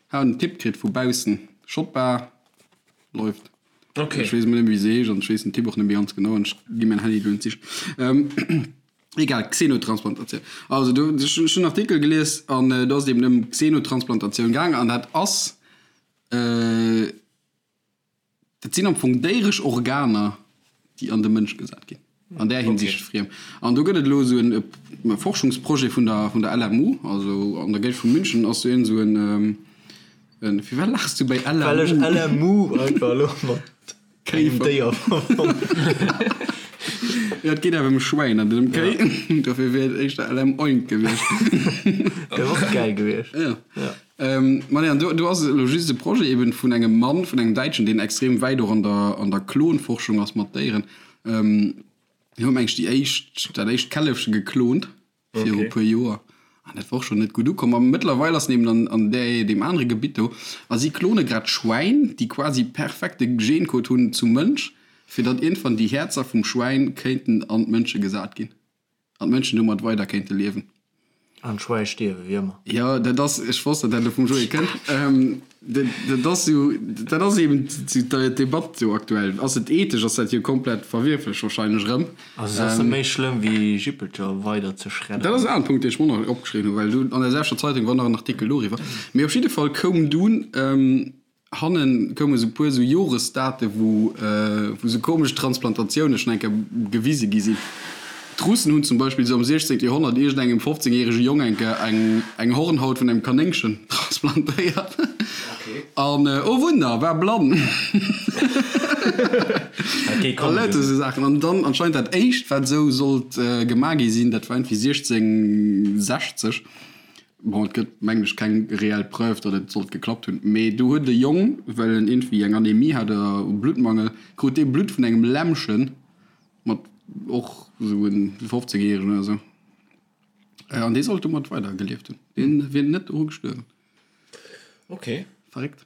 Hat en Tipp kritt vu baussen. Schottbar läuft. Okay. Ech weess emol net méi wéi se heescht an ech weess den Tipp och net méi ganz genau an ech gi mäin Handy elo net sichen. Egal, Xenotransplantatioun. Also do, ech hunn en Artikel gelies an do ass et eben ëm Xenotransplantatioun gaang an dat ass, Dat sinn am Fong déieresch Organer, déi an de Mënsch gesat ginn. An där Hinsicht friem. An do gëtt et elo esou en Forschungsprojet vun der, vun der LMU, also an der Géigend vu München ass do iergend esou en, en, firwat laachs du bäi LMU? Well ech LMU einfach elo mat engem Déier verbonnen. Jo, et geet awer ëm Schwäin an net ëm Kéi. Dofir wier et éischter LM-Oink gewiescht. Wär och gäil gewiescht. Jo. Ma nee, an do, do ass elo just e Projet eben vun engem Mann, vun engem Däitschen, deen extrem wäit och an der, an der Klonforschung ass mat Déieren. Deen huet meng ech déi éischt, dat éischt Källefche geklont viru e puer Joer. An dat war och schonn net gutt ukomm. A mëttlerweil ass en eben an, an där, deem anere Gebitt do. A si klone grad Schwäin, déi quasi perfekte Gencode hunn zum Mënsch, fir datt iergendwann déi Häerzer vum Schwäin kéinten an d'Mënsche gesat ginn. An d'Mënschen domat weider kéinte liewen. An d'Schwäi stierwe wéi ëmmer. Jo, dat ass, ech wosst, datt dat elo vum Joé kënnt. Dat ass jo, dat ass eben d'Debatt jo aktuell. Ass et ethesch? Ass dat jo komplett verwierflech wahrscheinlech erëm. Also et ass net méi schlëmm wéi Jippelcher weider ze schredderen. Dat ass en aneren Punkt, deen ech mer och nach opgeschriwwen hunn, well do an der selwechter Zeitung war nach en Artikel doriwwer. Mee op jidde Fall koum dunn Hannen koume sou puer sou Joresdate wou wou sou komesch Transplantatioune schonn eng Kéier gewise gi sinn. D'Russen hunn zum Beispill sou am 16. Joerhonnert iergendengem 15 järege Jong eng Kéier eng eng Hornhaut vun engem Kanéngchen transplantéiert. An oh Wunder, war blann! A lauter sou Saachen. An dann anscheinend dat éischt wat sou sollt gemaach gi sinn, dat war iergendwéi 1660. Bon, et gëtt, mengen ech, keng reell Preuve, datt et sollt geklappt hunn, mee do huet e Jong, well en iergendwéi eng Anemie hat oder Bluttmangel, krut dee Blutt vun engem Lämmchen, mat och esou en 15 Järegen oder esou, an dee sollt domat weider gelieft hunn. Dee wier net doru gestuerwen. Ok. Verréckt.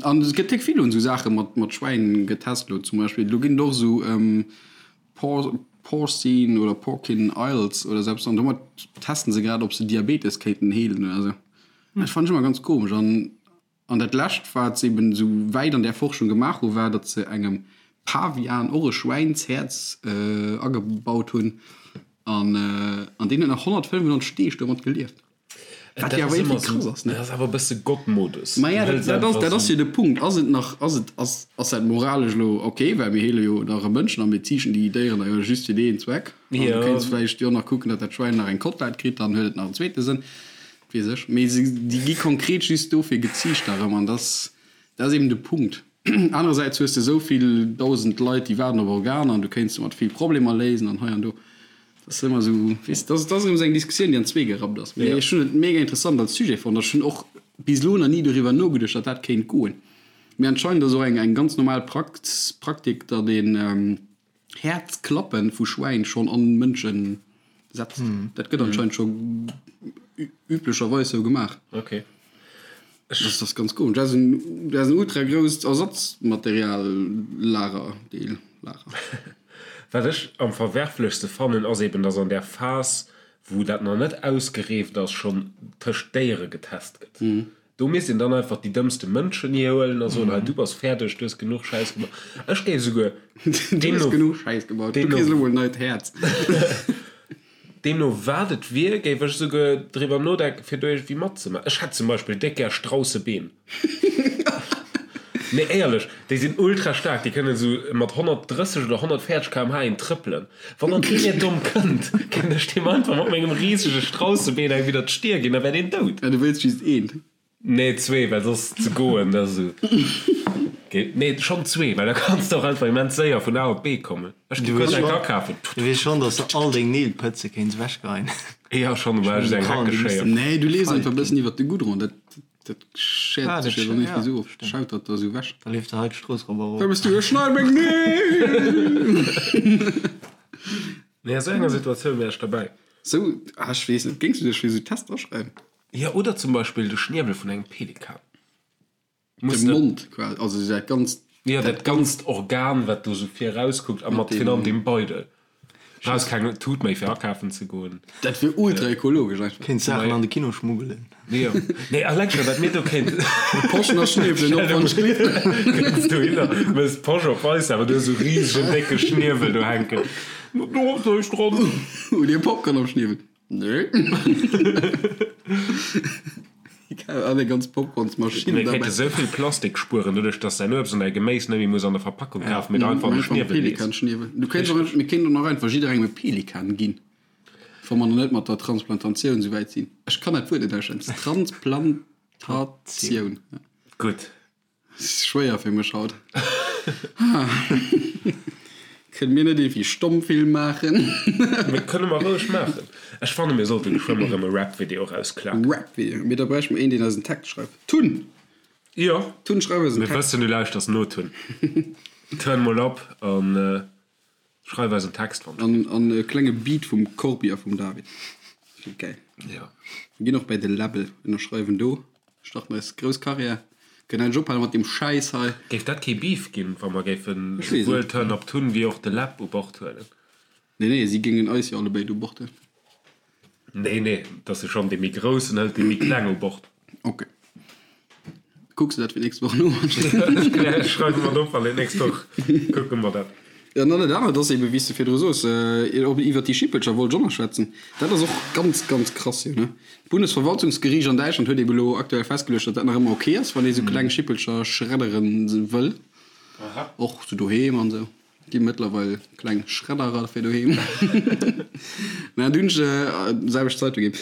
An et gëtt déck vill un esou Saache mat mat Schwäin getest elo zum Beispill. Do ginn et och esou Por Porcine oder Porcine Isles oder esou eppes an domat testen se grad ob se Diabetes kéinten heelen oder esou. Dat fannen ech ëmmer ganz komesch. An an dat lescht wat se eben esou wäit an där Forschung gemaach hu war, datt se engem Pavian och e Schwäinshäerz agebaut hunn an an deen huet nach 195 Deeg domat gelieft. Wat jo awer iergendwéi krass ass, ne? Dat ass awer e bësse Gottmodus. Ma ja, dat, dat ass, dat ass jo de Punkt. Ass et nach, ass et, ass, ass dat moralesch elo ok? Well mir heele jo nach e Mënschen a mir ziichten déi Déieren da jo just fir deen Zweck. An du kéints vläicht jo nach kucken, datt dat Schwäin nach eng Kotlett kritt, dann huet et nach en zweete Sënn. Weess ech. Mee se, déi gi konkret just dofir geziicht da rëm. An dat ass, dat ass eben de Punkt. Anerersäits hues de esou vill dausend Leit, déi waarden op Organer an du kéints domat vill Problemer léisen an hei an do. Dat ass ëmmer esou, weess, dat ass erëm esou eng Diskussioun, déi an zwee gerappt ass. Mee ech hunn et mega interessant als Sujet fonnt. Ech hunn och bis elo nach ni doriwwer nogeduecht, datt dat kéint goen. Mee anscheinend ass och eng eng ganz normal Praktik, datt een Häerzklappen vu Schwäin schonn an Mënschen setzt. Dat gëtt anscheinend scho üblecherweis sou gemaach. Ok. Dat ass ganz komesch. Dat ass en, dat ass en ultra grousst Ersatzmateriallager, Deel, Lager. Wat ech am verwerflechste fannen, ass eben, dass an där Phas, wou dat nach net ausgereeft ass, schonn tëscht Déiere getest gëtt. Do misst een dann einfach déi dëmmste Mënschen hihuelen a soen, hei du bass fäerdeg, du hues genuch Schäiss gemaach. Ech géif esouguer Du hues genuch Schäiss gebaut, du kriss elo mol en neit Häerz. Deemno wat et wier, géif ech esouguer driwwer nodenken, fir do iergendwéi matzemaachen. Ech hätt zum Beispill déck gär Straussebeen. Nee, éierlech, déi sinn ultra staark, déi kënnen esou mat 130 oder 140 km/h een trëppelen. Wann dann kee méi domm kënnt, kéint ech deem einfach mat mengem risege Straussebeen eng widder d'Stier ginn, da wär deen dout. Ja, du wéilst just eent. Nee, zwee, well soss ze goen, dat ass esou. Nee, schonn zwee, well da kanns de och einfach immens séier vun A op B kommen. Ech gi kuerz eng akafen. Du weess schonn, dass de all deng Neel pëtze kéints ewechgeheien. Jo, schonn, mä ech eng Heckeschéier. Nee, du lees einfach e bëssen iwwert de Goudron, dat dat schäert sech jo dann iergendwéi esou of, schaut dat da esou ewech. Da leeft de hei d'Strooss erop a erof. Wou bass du? Ech schneide meng Neel! Nee, a sou enger Situatioun wär ech derbäi. Sou, ah, ech weess net, géings du dech fir esou Tester aschreiwen? Jo, oder zum Beispill de Schniewel vun engem Pelikan. De Mond quasi, also dat ganzt. Jo, dat ganzt Organ, wat do sou vir erauskuckt a mat virun allem deem Beidel. Brauchs keng Tut méi fir akafen ze goen. Dat wier ultra ekologesch einfach. Kéints Saachen an de Kino schmuggelen. Jo, nee, eleng scho wat mir do kéint. Poschen a Schniewelen op wann ech gleef. Kënns dohinner, mëss d'Posch op eis, awer du hues esou risegen décke Schniewel do hänken. Do ass näischt dran. Hutt Dir Popcorn am Schniewel? Nee. An eng ganz Popcornsmaschinn Mir kéinte sou vill Plastik spueren, doduerch dass säin Uebst an däi Geméis net méi muss an der Verpackung kafen, mee der einfach an de Schniewel lees. Pelikanschniewel. Du kéints och, mir kéinten och nach einfach jidderengem e Pelikan ginn, wa mer nach net mat der Transplantatioun sou wäit sinn. Ech kann dat Wuert net aussprechen. Transplantatioun. Gutt. Schwéier fir mech haut. Kënne mir net iergendwéi Stommfilm maachen? Mir kënne mer roueg maachen. Ech fanne mir sollte geschwënn erëm e Rap-Video erausklaken. Rap-Video? Mee da bräichte mer een, deen eis en Text schreift. Tun! Jo. Tun, schreif eis en Text. Mir wëssen, du lauschters no, Tun. Turn mol op an Schreif eis en Text wann An an e klenge Beat vum Corbi a vum David. Dat wier gäil. Jo. Mir ginn och bäi de Läbbel, ënnerschreiwen do, starten eis grouss Karriär, kënnen endlech ophale mat deem Schäiss hei. Géif dat kee Beef ginn, wa mer géifen Ech weess souwuel net. Turn Up Tun wéi och de Läb u Bord huelen? Nee, nee, si géingen eis jo allebéid u Bord huelen. Nee, nee, et ass jo schonn dee méi Groussen hëlt dee méi Kleng u Bord. Ok. Kucks de dat fir d'nächst Woch no? Ech schreiwe mer et op an d'nächst Woch kucke mer dat. Jo, an dann dat anert ass eben, wéi s de virdru soos, iwwert déi Schippelcher wollt ech och nach schwätzen. Dat ass och ganz, ganz krass, jo, ne? D'Bundesverwaltungsgeriicht an Däitschland huet eben elo aktuell festgeluecht, datt dat nach ëmmer ok ass, wann ee sou kleng Schippelcher schreddere wëll, och sou doheem an esou. Gi mëttlerweil kleng Schredderer fir doheem. Mä dunn hunn ech selwecht Zeitung ginn.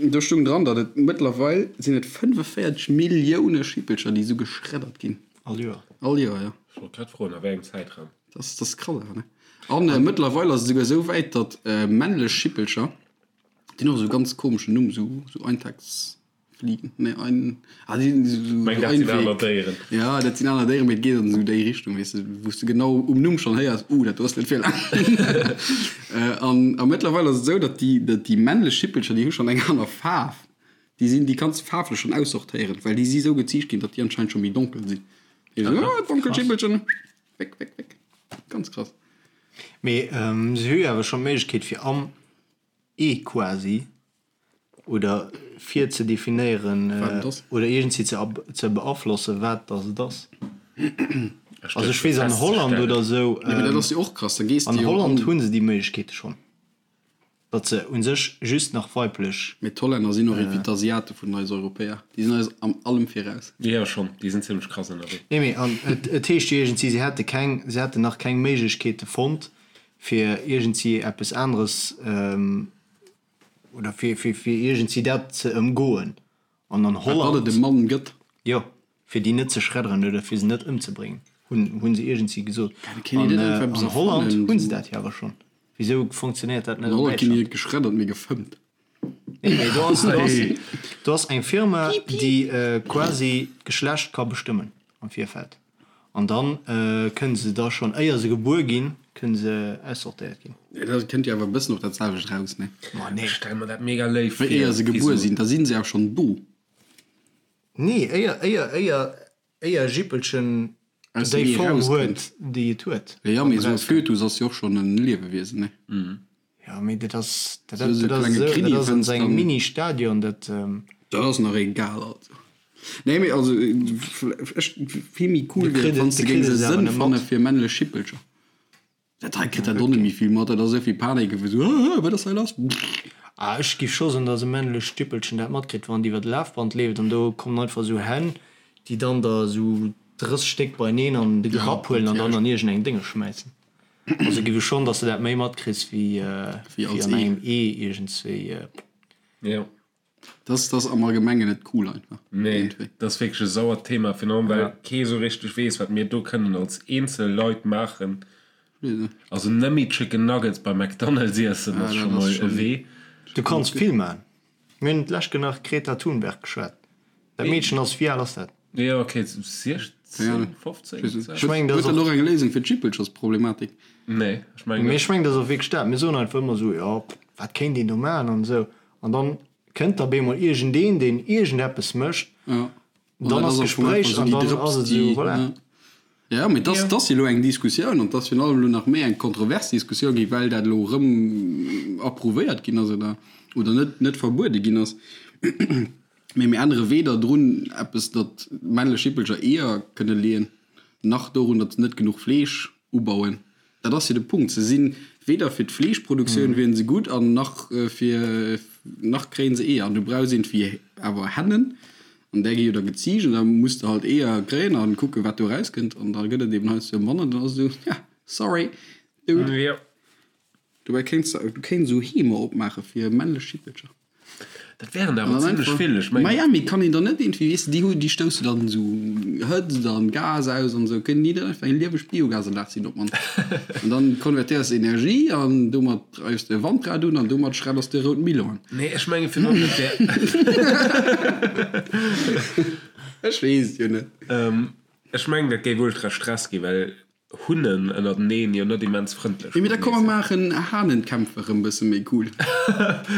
Do stung dran, datt et mëttlerweil sinn et 45 Millioune Schippelcher, déi esou geschreddert ginn. All Joer? All Joer, jo. Ech wollt grad froen, a wéi engem Zäitraum. Dat ass krass awer, ne? An mëttlerweil ass et esouguer esou wäit, datt männlech Schippelcher, déi hunn och esou e ganz komeschen Numm, esou Eintags. Fliegen, nee, ein, ah, die, so, so Meng, dat sinn aner Déieren. Ja, dat sinn aner Déieren, mee et geet an esou déi Richtung, weess de, wou s de genau um Numm schonn héiers, uh, dat do ass net fir laang. An, a mëttlerweil ass et esou, datt déi, datt déi männlech Schippelcher, déi hu schonn eng aner Faarf. Déi sinn, déi kanns de faarflech schonn aussortéieren, well déi si esou geziicht ginn, datt déi anscheinend scho méi donkel sinn. Déi esou, ah, donkel Schippelchen, weg, weg, weg. Ganz krass. Mee se hu jo awer schonn d'Méiglechkeet fir am Ee quasi oder fir ze definéieren oder iergendwéi ze ze beaflossen, wat dass et ass. Also ech weess an Holland oder esou, an Holland hu se déi Méiglechkeete schonn, datt se u sech just nach weiblech. Mee d'Hollänner sinn och iergendwéi d'Asiate vun eis Europäer, déi sinn eis an allem viraus. Jo schonn, déi sinn zimmlech krass ënnerwee. Nee mee an et heescht jo iergendwéi, se hätte keng, se hätten nach keng Méiglechkeete fonnt, fir iergendwéi eppes aneres oder fir, fir, fir iergendwéi dat ze ëmgoen. An an Holland. Datt et e Mann gëtt. Jo, fir déi net ze schredderen oder fir se net ëmzebréngen, hunn, hu se iergendwéi gesot. An an Holland hu se dat jo awer schonn. Wisou funktionéiert dat net an An Holland ginn déi net geschreddert, mee gefëmmt. Nee, mee do ass, do ass, do ass eng Firma, déi quasi d'Geschlecht ka bestëmmen. am Virfeld. An dann kënne se da schonn, éier se gebuer ginn, kënne se aussortéiert ginn. Dat kënnt jo awer e bëssen op dat selwecht raus, ne? Ma nee. Ech stelle mer dat mega léif vir. Éier se gebuer sinn, da si se awer schonn do. Nee, éier, éier, éier, éier e Jippelchen Aus dem déi Ee Form rauskënnt. huet, déi et huet. Jo, mee esou e Fötus ass jo och schonn e Liewewiesen, ne? Jo, mee dat ass, dat, Esou dat ass klenge esou, Kriddi dat ass an fënns sengem dann. Mini-Stadion, dat. Dat ass nach egal, also. Nee, mee also, ech, vill méi cool De wier et, kritt wann et, s de de géings kritt e et awer Sënn net fanne mat. fir männlech Jippelcher. Dat hei kritt dat och net méi vill mat, dat ass esou vill Panik, esou, ah, wat ass hei lass? Ah, ech giff scho soen, dass e männlecht Jippelchen dat matkritt, wann et iwwer de Lafband leeft an do kommen einfach esou Hänn, déi dann der esou 30 Stéck beineen an de Grapp huelen an dann an iergendeng Dénge schmäissen. Also giff ech schonn, dass de dat méi matkriss wéi an engem Ee iergendswéi. Jo. Das das am Allgemengen net cool einfach. Nee, dat ass wierklech e sauert Thema, virun allem well kee sou richteg weess, wat mir do kënnen als eenzel Leit maachen. Also net méi Chicken Nuggets bei McDonald's iessen ass scho mol e Wee. Du kanns vill maachen. Mir hunn d'lescht nach Greta Thunberg geschwat. Dat Meedchen ass, wéi al ass dat? Jo, ok, 16, 15? Ech mengen, dat Huet ass dat och. och eng Léisung fir d'Jippelchersproblematik? Nee, ech mengen Mee net. ech mengen, dat ass och wierklech dat. Mir soen einfach ëmmer esou, jo, wat kéint een do maachen an esou. An dann kënnt da bemol iergendeen, deen iergendeppes mécht, Ja. dann ass Gespréich an dann ass et esou, voilà. Ja, mee dass dass elo eng Diskussioun an dass virun allem elo nach méi eng kontrovers Diskussioun gi well dat elo erëm approuvéiert ginn ass oder oder net net verbuede ginn ass. Mee mir ännere weder drun eppes, datt männlech Jippelcher Eeër kënne leeën, nach dorun, datt se net genuch Fleesch ubauen. Dat ass jo de Punkt. Se si weder fir d'Fleeschproduktioun wieren se gutt an nach fir, nach kréien se Eeër. An du brauchs iergendwéi awer Hennen an där gi jo da geziicht an da muss de halt Eeër kréien a kucken, wat do erauskënnt. An da gëtt et eben heiansdo manner. Dann ass et esou, ja, sorry, dude. Jo. Dobäi kéints de, du kéints esou Heemer opmaache fir männlech Jippelcher. Dat wären der awer zimlech vill. Ech mengen. Miami kann een dann net iergendwéi, weess de, déi hu, déi stousse dann esou Hëtzt an Gas aus an esou, kënnen déi dann einfach eng lieweg Biogasanlag sinn op d'mannst. An dann konvertéiers de Energie an domat dreifs de e Wandrad un an domat schredders de e rout Melon. Nee, ech menge virun allem, dat wär. Ech weess et jo net. Ech mengen, dat géif ultra Stress ginn, well Hunnen ënnerteneen jo net immens frëndlech Mee da matenee komm mer sinn. maachen Hahnenkämpfe rëm bësse méi cool.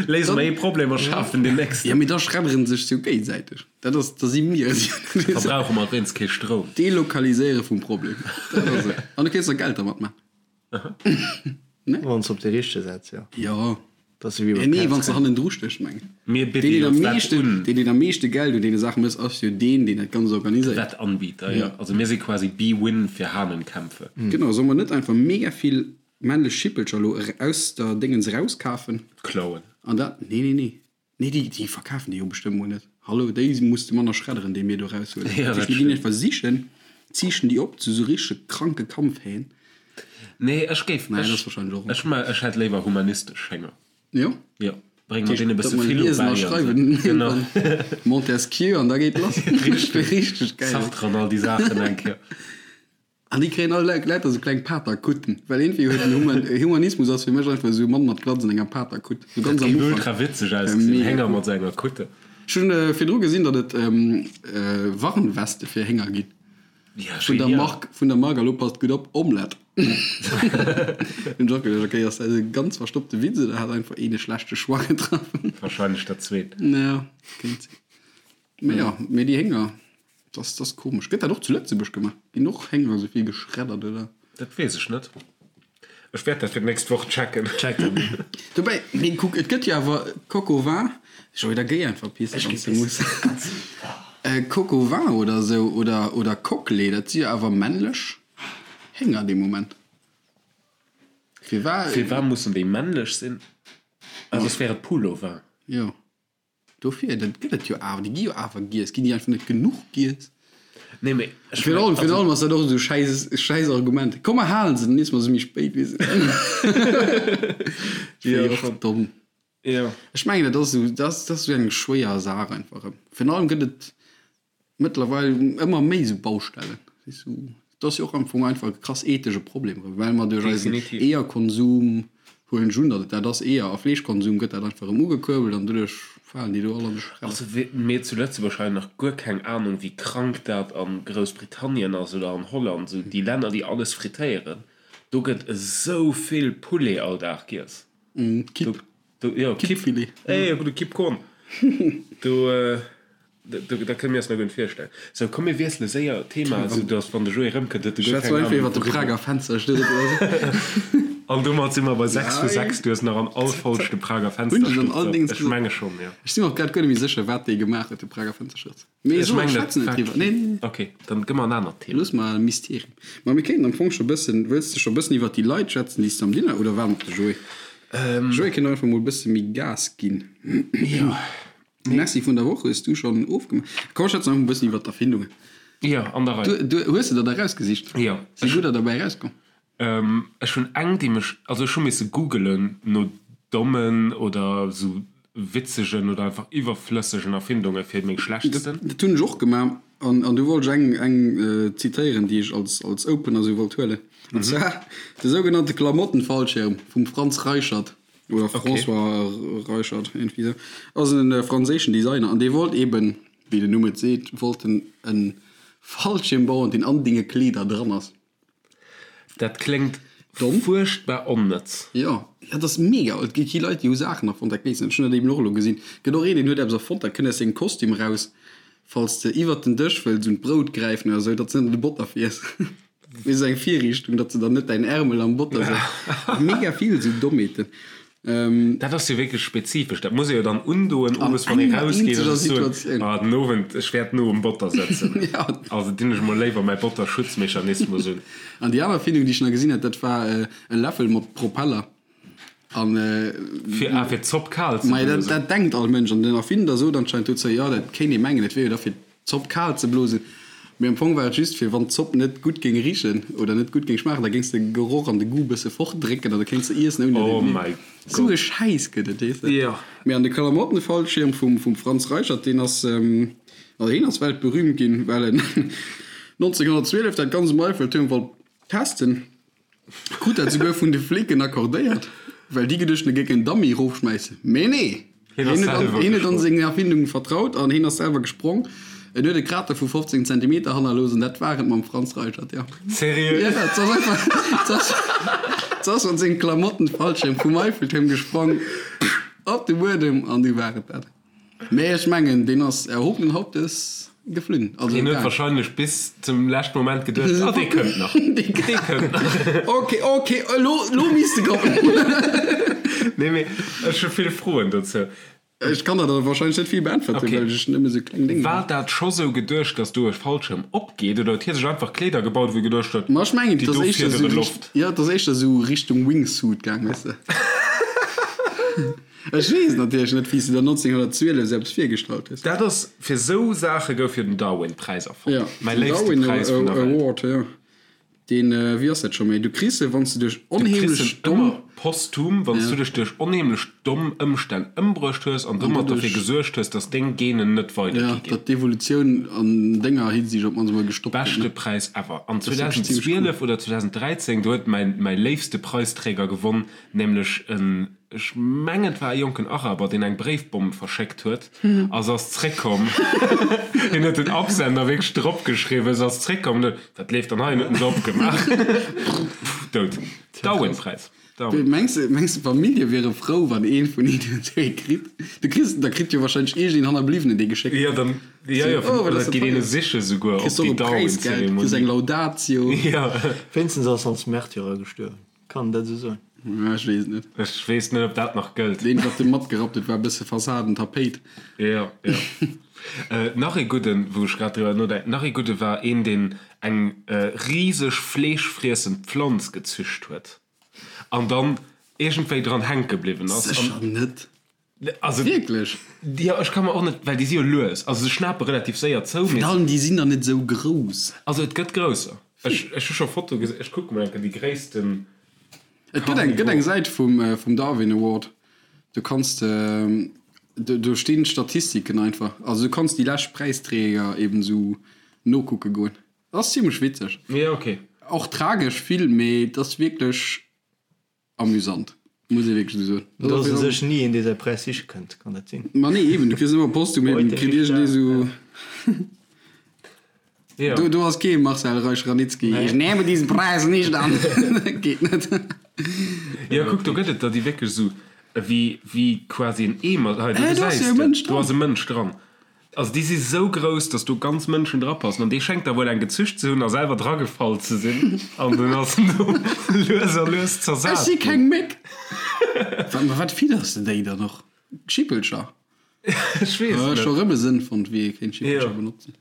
Léise mer ee Problem a schafen deen nächsten. Jo, mee da schredderen sech se jo géigesäiteg. Dat ass, da si mir et jo net. Verbrauche mer wéinst kee Stroum. Delokaliséiere vum Problem, dat ass et. An du kéints nach Geld dermat maachen. Ne? Wann s op dee richtege setz, jo. Jo. Dat ass ewéi beim Nee, wann s de hannendru stéchs, mengen. Mir bidde Deen, deen jo am d'Wett meeschten, un. deen, deen am meeschte Geld un deene Saache mécht, ass jo deen, deen dat Ganzt organiséiert. Wettanbieter, jo. Also mir si quasi Bwin fir Hahnenkämpfe. Genau, solle mer net einfach mega vill männlech Schippelcher elo aus der Déngens erauskafen? Klauen. An dat, nee, nee, nee. Nee, déi, déi verkafen déi jo bestëmmt mol net. Hallo, déi muss de manner schredderen, déi mir do eraushuelen. Ja, Dat dat heescht, mir ginn stimmt. einfach sichen, ziichten déi op zu sou richtege kranke Kampfhähn. Nee, ech géif, Naja, dat ech, ass wahrscheinlech och. ech, ma, ech hätt léiwer humanistesch Hénger. Jo? Jo, bréng mer deene e Dat bësse mer Philo liesen bäi a an sou. schreiwen. Genau. Montesquieu an da geet lass. Richteg. Richteg geil. Sartre an all déi Saachen eng Kéier. An déi kréien all lauter sou kleng Paterkutten, well iergendwéi huet den Human, Humanismus ass fir mech einfach esou e Mann mat Glatz an enger Paterkutt, sou ganz Dat am géif Ufank. ultra witzeg ausgesinn, Mega Hénger cool. mat sou enger Kutte. Ech hunn virdru gesinn, datt et Warnweste fir Hénger ginn. Ja, Vun der genial. Mark, vun der Mark, a lo passt gutt op, Omelette. Hunn ech och geduecht, okay, ass dat e ganz verstoppte Witz oder hat einfach een e schlechte Choix getraff? Wahrscheinlech dat zweet. Ja, kéint sinn. Mee jo, mee déi Hénger. Dat ass komesch. Gëtt dat och zu Lëtzebuerg gemaach? Ginn och Hénger esou vill geschreddert, oder? Dat weess ech net. Ech wäert dat fir d'nächst Woch checken. Check dat mol. Dobäi, mee kuck, et gëtt jo awer Coq au vin. Joé, da géi einfach pissen, wann s de muss. Coq au vin oder esou, oder, oder Coquelet, dat si jo awer männlech Hénger dee Moment. Firwat? Firwat mussen déi männlech sinn? Ah, soss wär et Poule au vin. Jo. Dofir, dat gëtt et jo awer, déi gi jo awer giess. Ginn déi einfach net genuch giess? Nee, mee ech Virun allem, virun allem ass dat och esou schäiss, schäiss Argument. Komm mer halen se, dann iesse mer se méi spéit, weess de. Ja, Jo, och schon. domm. Jo. Ech mengen, dat ass esou, dat ass, dat ass esou eng schwéier Saach einfach erëm. Virun allem gëtt et mëttlerweil ëmmer méi esou Baustellen. Weess du, dat ass jo och am Fong einfach e krass ethesche Problem erëm, well mer duerch eisen Definitiv. Eeërkonsum, huelen ech un, datt et dat ass, Eeër a Fleeschkonsum gëtt dat einfach erëm ugekuerbelt an doduerch. Falen déi do all an de Schredder. Also mir zu Lëtzebuerg hei nach guer keng Ahnung wéi krank dat a Groussbritannien ass oder an Holland, esou déi Länner déi alles frittéieren, do gëtt esou vill Poulet all Dag giess. Kipp. Do, jo, Kipp. Kippfilet. Ey, e gudde Kippkorn. Do, dat kënne mir eis nach guer net virstellen. Sou, komm mir wiessele séier d'Thema, esou datt wann de Joé erëmkënnt, huet e guer Schwätz keng einfach Ahnung iwwer de wouriwwer. Prager Fenstersturz oder sou. An domat si mer bei 6 vu 6. Du hues nach an all Folg de Prager Hunn ech an all Fenstersturz. Dings Ech gesot. menge schonn, jo. Ech si mer och grad guer net méi sécher, wat dee gemaach huet, de Prager Fenstersturz. Mee Ech so, mengen, dat schwätzen net war driwwer. Nee, nee, nee. Ok, dann gë mer en anert Thema. Looss mer e Mysterium. Ma mir kéinten am Fong scho bëssen, wëlls de scho bëssen iwwert déi Leit schwätzen, déi s de am Dinner, oder waarde mer op de Joé? Joé kéint och einfach mol bësse méi Gas ginn. Jo. Merci vun der Woch hues du schonn ofgemaach. Komm schwätzen einfach mol bëssen iwwert d'Erfindungen. Jo, an der Rei. Du, du, hues de der der erausgesicht? Jo. Si gudder derbäi erauskomm? Ech hunn eng, déi mech, also ech hu misse googelen no dommen oder sou witzegen oder einfach iwwerflëssegen Erfindunge fir meng schlechtsten. Dat hunn ech och gemaach an an du wollt ech eng eng zitéieren, déi ech als als Opener sou wollt huelen. An zwar de sougenannte Klamottenfallschirm vum Franz Reichert oder François Reichert, iergendwéi sou, ass e franséischen Designer an dee wollt eben, wéi den Numm et seet, wollt en e Fallschirm bauen, deen an denge Kleeder dran ass. Dat kléngt Domm? fuerchtbar onnëtz. Jo, dat ass mega. Et gi Leit, déi hu Saachen erfonnt, dat weess ech. Ech hunn dat eben och elo gesinn. Et gëtt och een, deen huet eppes erfonnt, dat kënnt aus sengem Kostüm eraus, falls de iwwert den Dësch wëlls un d'Brout gräifen oder esou, datt s de net an de Botter fiers. Mee esou eng Virriichtung, datt s de dann net däin Ärmel am Botter sëtzt. Mega vill esou Dommheeten. Dat ass jo wierklech spezifesch. Dat muss ee jo dann undoen, owes wann ee rausgeet an sech soen, ah den Owend, ech wäert no um Botter sëtzen. Also dinn ech mol léiwer mäi Botterschutzmechanismus un. An déi aner Erfindung, déi ech nach gesinn hat, dat war e Läffel mat Propeller. An Fir, ah, fir d'Zopp kal ze Majo, dat, blosen. dat denkt all Mënsch. An den Erfinder sot anscheinend dozou, jo, dat kéint ee mengen, et wier jo da fir d'Zopp kal ze blosen. Mee am Fong war et just fir, wann d'Zopp net gutt géing richen oder net gutt géing schmaachen, da géings de Geroch an de Goût bësse fortdrécken an da kéints de iessen ouni datt Oh een et mäi mierkt. Sou Gott. e Schäiss gëtt et, weess de. Jo. Mee an de Klamottenfallschirm vum, vum Franz Reichert, deen ass, also hien ass weltberühmt ginn, well en 1912 dat ganz um Eiffeltuerm wollt testen. Krut dat souguer vun de Flicken accordéiert, well déi geduecht hunn, e géing en Dummy erofschmäissen. Mee nee! Hien ass Hien huet an, selwer hien huet an gesprong. seng Erfindung vertraut an hien ass selwer gesprong. En huet e Krater vu 15 Zentimeter hannerlooss an dat war et mam Franz Reichert, jo. Seriö? Ja, et ass einfach, et ass, et ass mat sengem Klamottenfallschirm vum Eiffeltuerm gesprong op de Buedem an du war et dat. Mee ech mengen, deen ass erhobenen Hauptes geflunn. Also Hien huet gaang. wahrscheinlech bis zum leschten Moment geduecht, ah, dee kënnt nach, dee kënnt nach. Ok, ok, elo, elo misst e kommen. Nee, mee ech hu vill Froen dozou. Ech kann der der wahrscheinlech net vill beäntwerten, Ok. well ech nëmme sou kleng Dénger War hunn. dat scho sou geduecht, dass do e Fallschirm opgeet, oder huet hie sech einfach Kleeder gebaut, wou e geduecht huet, Ma ech mengen, déi et ass do éischter sou fiedere Richt, Loft? jo, et ass éischter sou Richtung Wingsuit gaang, weess de. Ech weess natierlech net, wéi s de der 1912 sou eppes virgestallt hues. Dat ass, fir sou Saache gouf jo den Darwin-Präis erfonnt. Ja, Mäi den léifste Darwin Präis vun der Welt. Award, jo. Deen, wéi ass dat scho méi? Du kriss e, wann s de duerch Du kriss onheemlech en domm. ëmmer posthum, wann s du dech duerch onheemlech domm Ëmstänn ëmbruecht hues an domat derfir doduerch. gesuergt hues, dass deng Genen net Ja, weidergi ginn. datt d'Evolutioun an denger Hinsicht op d'mannst emol gestoppt gëtt, Beschte ne? Präis ever. An Dat ass wierklech zimmlech cool. 2012 oder 2013, do huet mäin, mäi léifste Preisträger gewonn, nämlech en, Ech mengen et war e jonken Araber deen eng Bréifbomm verschéckt huet a se ass zréckkomm. Hien huet den Absender wierklech drop geschriwwen, se ass zréckkomm an huet, wat leeft dann hei? An huet en se opgemaach. Dout. Darwin-Präis. Darwin. Mengs de, mengs de d'Famillje wiere frou wann een vun hinnen dee kritt? Du kriss, da kritt jo wahrscheinlech iergendeen Hannerbliwwenen dee geschéckt. Jo, dann, jo, jo, Oh, wat oder ass et dat geet een teuer. e siche souguer Kriss op och déi e Präisgeld, kriss eng Darwin-Zeremonie. Laudatio. Jo. Wéinstens ass als Märtyrer gestuerwen. Kann een dat esou soen? Ja, ech weess et net. Ech weess net, ob dat nach gëllt. Deen, wat de matgerappt huet, war e bësse Fassaden-Tapéit. Jo, jo. Nach ee gudden, wou ech grad driwwer nodenken, nach ee gudde war een, deen eng riseg fleeschfriessend Pflanz gezücht huet an dann iergendwéi dran hänke bliwwen ass. Sécher net. Also, Wierklech? Jo, ech ka mer och net, well déi si jo lues, also se schnape relativ séier zou, mee. Virun allem, déi sinn der net esou grouss. Also et gëtt grousser. Ech, ech hu scho Fotoe gesinn, ech kucke mol eng Kéier déi gréissten. Et gëtt eng, gëtt eng Säit vum, vum Darwin Award, do kanns de, do, do stinn d'Statistiken einfach. Also du kanns déi lescht Präisträger eben esou nokucke goen. Ass zimlech witzeg. Jo, okay. Och tragesch vill, mee et ass wierklech amüsant. Muss ee wierklech esou soen. Do ass u sech ni een, dee säi Präis siche kënnt, kann dat sinn? Ma nee, eben, du kriss ëmmer posthum eben, kritt iergendee sou. Jo. Do, do ass kee Marcel Reich-Ranicki, Ich nehme diesen Preis nicht an. Geet net. Jo, kuck, do gëtt et der, déi wierklech esou wéi, wéi quasi en Eemer, hei, do Äh, do ass gesäis jo e de, Mënsch do dran. ass e Mënsch dran. Also déi si sou grouss, datt do ganz Mënschen drapassen. An dee schéngt da wuel eng gezücht ze hunn a selwer dragefall ze sinn. An dunn ass en do lues a lues Ech zersat si ginn. keng Méck. Wat, ma wat fidders de déi dann och? Schippelcher? Ech weess Ech et scho net. rëm e Sënn fonnt, wéi ee kéint Schippelcher Jo. benotzen.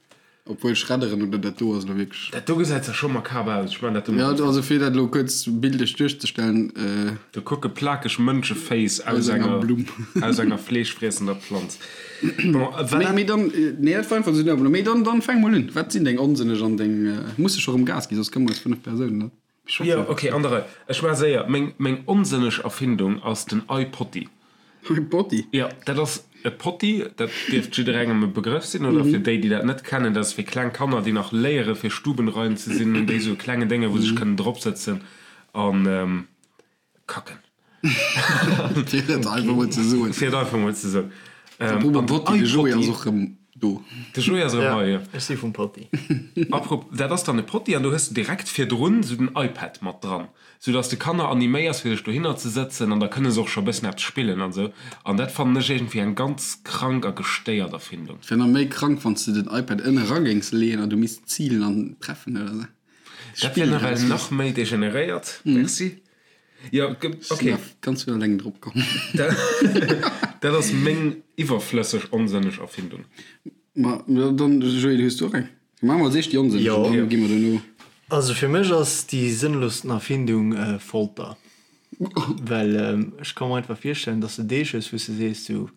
Obwuel schredderen oder dat do ass elo wierklech. Dat do gesäit zwar scho makaber aus. Ech man dat do Ja, mol. also fir dat elo kuerz bildlech duerchzestellen. Do kucke plakeg Mënscheféiss aus Aus enger enger Blumm. aus enger fleeschfriessender Planz. Bon, wat Mee, dat. mee dann, nee, dat war einfach esou den Mee dann, dann fänk mol un. Wat sinn deng onsënneg an deng. Muss de scho rëm Gas ginn, soss kënne mer eis 5 Persounen net Jo, schaffen. okay, an der Rei. Ech war séier. Meng, meng onsënneg Erfindung ass den iPotty. iPotty? Jo, dat ass e Potti, dat dierft jidderengem e Begrëff sinn, oder fir déi, déi dat net kennen, dat ass fir kleng Kanner, déi nach léiere fir stubenrein ze sinn, hunn déi esou e klenge Dénge wou se sech kënnen dropsëtzen an kacken. Fir et einfach mol ze soen. Fir et einfach mol ze soen. Apropos Potti, de Joé ass och rëm do. De Joé ass erëm hei, jo. Ech si vum Potti. Apropos, dat ass dann e Potti an do hues de direkt virdrun esou den iPad mat dran, sou dass de Kanner animéiers fir sech dohinner ze sëtzen an da kënne se och scho e bëssen eppes spillen an esou. An dat fannen ech iergendwéi eng ganz krank a gestéiert Erfindung. Et wär nach méi krank wann s de den iPad ënne ra géings leeën an du misst zilen an treffen oder esou. Dat wär nawell nach méi degeneréiert. Merci. Jo, Ech ok. sinn nach ganz vun eleng drop komm. Dat ass meng iwwerflësseg onsënneg Erfindung. Ma dann, Joé, du hues du och eng? Maache mer als éischt déi onsënneg an dann gi mer duerno. Also fir mech ass déi sënnlossten Erfindung Folter. Well ech ka mer einfach virstellen, dass de Deeg hues, wou s de sees sou,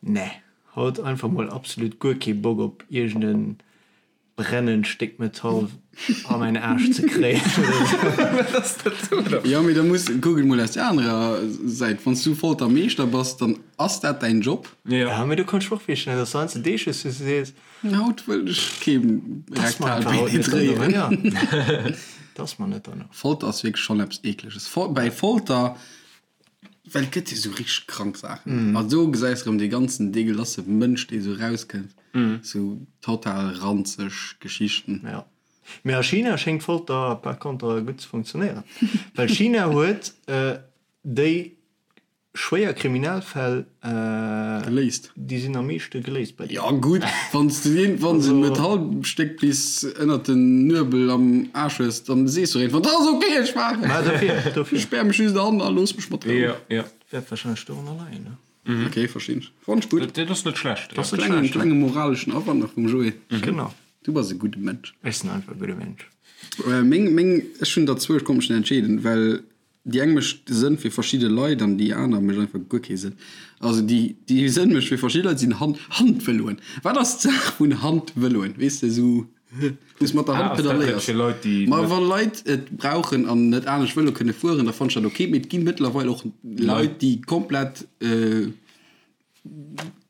nee, haut einfach mol absolut guer kee Bock op iergend en brennend Stéck Metall a mäin Aarsch ze kréien oder sou. Wat ass dat do da? Jo, mee da muss, kuck et mol aus der anerer Säit, Wann s du Foltermeeschter bass, dann ass dat däin Job. Jo. Ja, mee du kanns mech och virstellen, dass du heiansdo Deeg hues, wou s de sees, Haut wëll ech kee Das mer rektal einfach haut net danno. penetréieren. Ja. Das mer net danno. Folter ass wierklech schonn eppes Eekleges. Bäi Folter, well et gëtt jo sou richteg krank Saachen. A do gesäis erëm dee ganzen deegelasse Mënsch, dee sou rauskënnt. Sou total ranzeg Geschichten. Ja. Mee a China schéngt Folter par contre gutt ze funktionéieren. Well China huet déi Schwéier Kriminalfäll, Geléist. déi sinn am meeschte geléist bei Jo gutt, wann s de iergendwann esou en Metallstéck bis ënnert den Nuebel am Aarsch hues, dann sees du iergendwann, dat ass ok, ech maachen Mä dofir, dofir. Ech späer mech just an a looss mech mat Rou. Jo, jo. Wäert wahrscheinlech dorunner leien, ne? Ok, verstinn ech. Fannt ech gutt. Dat ass net schlecht. Dat ass net Klengen, schlecht. klenge moraleschen Awand nach vum Joé. Genau. Du bass e gudde Mënsch. Ech sinn einfach e gudde Mënsch. Meng, meng, ech hunn der zwou, ech konnt mech net entscheeden, well Déi eng mécht Sënn fir verschidde Leit an déi aner mécht einfach guer kee Sënn. Also déi, déi Sënn mécht fir verschidde Leit sinn Hand, Handvëloen. Wat ass d'Saach vun Handvëloen? Weess de, esou wou s mat der Ah, Hand ass dat net pedaléiers. fir Leit, déi Ma net. wa Leit et brauchen an net anescht Vëlo kënne fueren, da fannen ech dat ok. Mee et gi mëttlerweil och Leit, déi komplett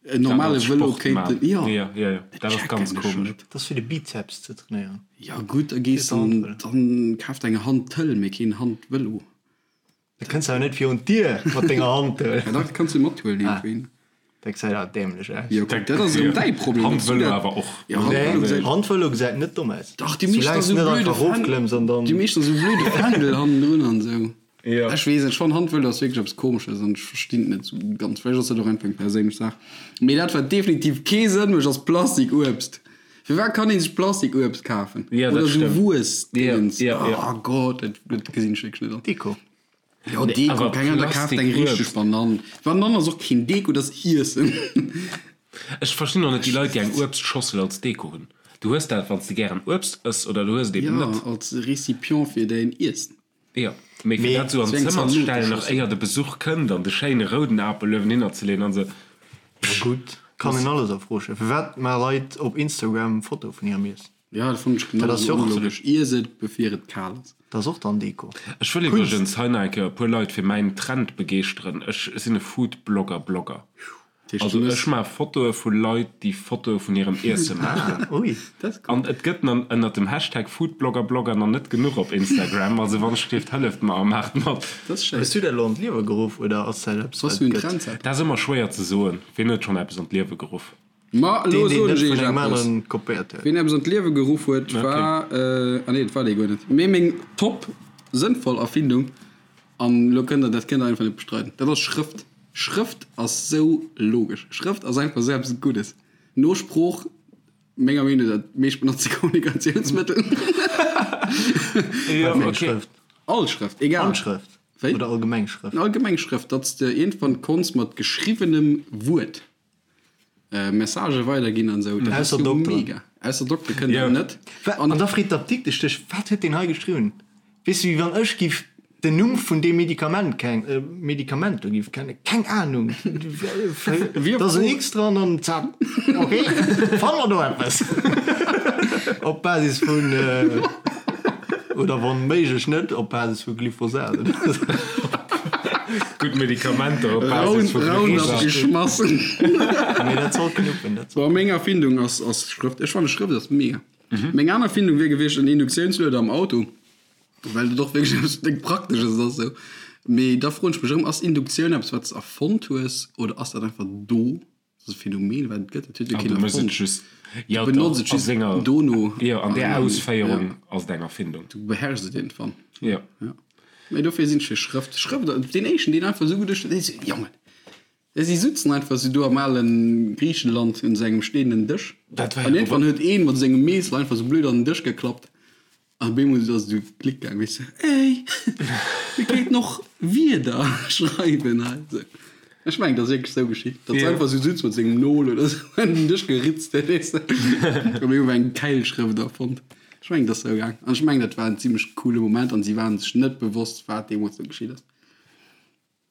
en normale Vëlo kéinten, jo. Ja, ja, ja, dat ass ganz komesch. Dat ass fir de Bizeps ze trainéieren. Ja gutt, da gees dann, dann kaf der eng Hantel, mee keen Handvëlo. Da kënns awer net virun d'Dier mat denger Hantel. Ja dach, kanns du mathuelen iergendwéi. Dat gesäit awer dämlech aus. Jo kuck, dat ass erëm däi Problem. Handvëlo awer och. Ja, Handvëlo gesäit. Handvëlo gesäit net domm aus. Dach, déi meescht Soulaang s esou du net blöde einfach erofklëmms an dann. Déi meescht esou blöde Fändel hannendrun an esou. Jo. Ech weess net, ech fannen Handvëlo ass wierklech eppes Komesches an ech verstinn et net esou ganz. Vläicht ass dat och einfach eng perséinlech Saach. Mee dat wat definitiv kee Sënn mécht ass Plastikuebst. Firwat kann ee sech Plastikuebst kafen? Ja, dat Oder esou stëmmt. Wuessdingens. Ja, ja, ja. Oh Gott, dat dat gesinn ech wierklech net an. Deko. Jo, Deko, awer keng Ahnung, da kaaft eng richteg Plastikuebst. Banann. Banann ass och keen Deko, dat ass Iessen. Ech verstinn och net déi Leit, déi eng Uebstschossel als Deko hunn. Du hues dat, wann s de gären Uebst ëss, oder du hues et eben Ja, net. als Récipient fir däin Iessen. Jo, mee fir dat esou an d'Zëmmer ze stellen, nach éier de Besuch kënnt, an de schéine rouden Apel uewen hinner ze leeën an esou. Ma gutt, kann een alles a Fro stellen. Firwat maache Leit op Instagram Fotoe vun hirem Iessen? Ja, dat fannen ech genau Dat ass esou jo och onlogesch. Iess et, bevir et kal ass. Dat ass och dann Deko. Ech wëll iwwregens hei nach eng Kéier e puer Leit fir mäin Trend begeeschteren. Ech sinn e Foodblogger-Blogger. Also ech maache Fotoe vu Leit, déi Fotoe vun hirem Iesse maachen. Ui. An et gëtt nan ënnert dem Hashtag Foodbloggerblogger nach net genuch op Instagram. Also wann ech dierft, hëlleft mer a maacht mat. Dat ass schéin. Hues du dat elo an d'Liewe geruff oder ass dat eppes wat et gëtt? Dat ass ëmmer schwéier ze soen. Wien huet schonn eppes an d'Liewe geruff? Ma elo Deen, deen soen net ech vun iech engem eppes. aneren kopéiert huet. Wien eppes an d'Liewe geruff huet, war, ah nee, dat war dee guer net, mee meng top sënnvoll Erfindung, an elo kënnt der, dat kënnt der einfach net bestreiden, dat ass Schrëft. Schrëft ass sou logesch. Schrëft ass einfach sou eppes Guddes. No Sprooch, menger Meenung no, dat meescht benotzte Kommunikatiounsmëttel. Jo, Wat fir eng okay. Schrëft? All Schrëft, egal. Handschrëft Wéi? oder allgemeng Schrëft? Allgemeng Schrëft, datt s de iergendwann konns mat geschriwwenem Wuert Messagë weiderginn an esou. Dat ass Ausser jo Dokteren. mega. Ausser Doktere kënnen Jo. dat net. Wa- An da freet d'Apdiktesch dech, Wat huet deen hei geschriwwen? Weess du, wéi wann ech giff den Numm vun deem Medikament keng, Medikament do giff kennen? Keng Ahnung. Wie Da ass en fro- X dran an zack. Okay, fanne mer do eppes. Op Basis vun, oder wann méiglech net, op Basis vu Glyphosat. Gutt Medikamenter op Basis vu Roundup Glyphosat. geschmassen. Mee dat soll knuppen, dat soll. Bon, meng Erfindung ass, ass Schrëft. Ech fanne Schrëft ass mega. Meng aner Erfindung wier gewiescht en Induktiounslueder am Auto, well dat och wierklech eppes déck Praktesches ass esou. Mee da froen ech mech erëm, ass Induktioun eppes wat s de erfonnt hues oder ass dat einfach do? Dat ass e Phänomen wat et gëtt, dat huet jo Ah, keen du mëss et erfonnt. just. Du Jo, benotz doch, et a just senger, dono. jo, an där An, Ausféierung ja, ass et eng Erfindung. du beherrschs et iergendwann. Jo. Ja. Mee dofir sinn ech fir Schrëft. Schrëft, deen éischten, deen einfach esou geduecht huet, dee sou, Jongen, si sutzen einfach esou do am ale Griichenland un esou engem steenen Dësch. Dat war An jo iergendwann huet een mat sengem Meessel einfach esou blöd an den Dësch geklappt. An op eemol ass esou Klick gaang, weess de, Ey, mir kéinten och Wierder schreiwen hei. Esou. Ech mengen, dat ass wierklech esou geschitt, datt se Ja. einfach esou sutz mat sengem Nol oder esou an den Dësch geritzt huet, weess de. An op eemol war eng Keilschrëft erfonnt. Ech mengen, dat ass esou gaang. An ech mengen, dat war en zimmlech coole Moment an si waren sech net bewosst, wat deemools do geschitt ass.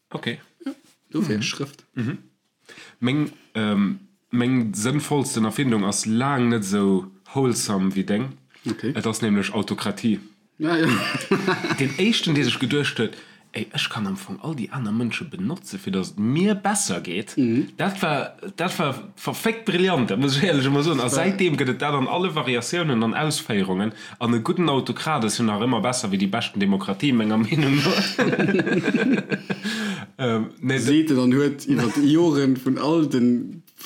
Ok. Ja, dofir Schrëft. Meng, meng sënnvollsten Erfindung ass laang net esou wholesome wéi deng. Ok. Et ass nämlech Autokratie. Ja, ja. Deen éischten, dee sech geduecht huet, Ey, ech kann am Fong all déi aner Mënsche benotze fir datt et mir besser geet, dat war, dat war verféckt brillant, dat muss ech éierlech emol soen. A säitdeem gëtt et dat an alle Variatiounen an Ausféierungen. An e gudden Autokrat ass jo nach ëmmer besser wéi déi beschten Demokratie, menger Meenung no. Nee, Seet en an huet iwwer Joren vun all de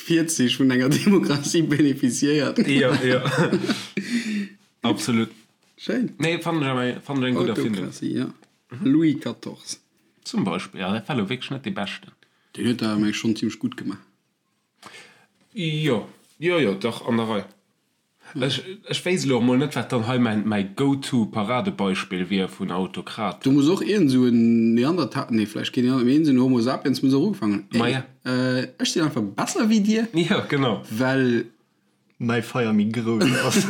Virzich vun enger Demokratie beneficiéiert. Jo, jo. Absolut. Schéin. Nee, fannen ech awer, fannen ech eng gutt Erfindung. Autokratie, ja. Louis 14. Zum Beispill, ja, dat war elo wierklech net dee beschten. Deen huet dat awer, meng ech, schonn zimmlech gutt gemaach. Jo, jo, jo, dach, an der Rei. Ech, ech wéisst elo och mol net, wat dann hei mäin, mäi Go-to-Paradebeispill wier vun Autokraten. Do muss och iergend esou en Neandertaler, nee, vläicht keen Neandertaler, mee iergend esou en Homo sapiens muss och ugefaangen hunn, Ma ja. Ey, ech sinn einfach besser wéi dir, Jo, genau. well. Mäi Feier méi grouss ass.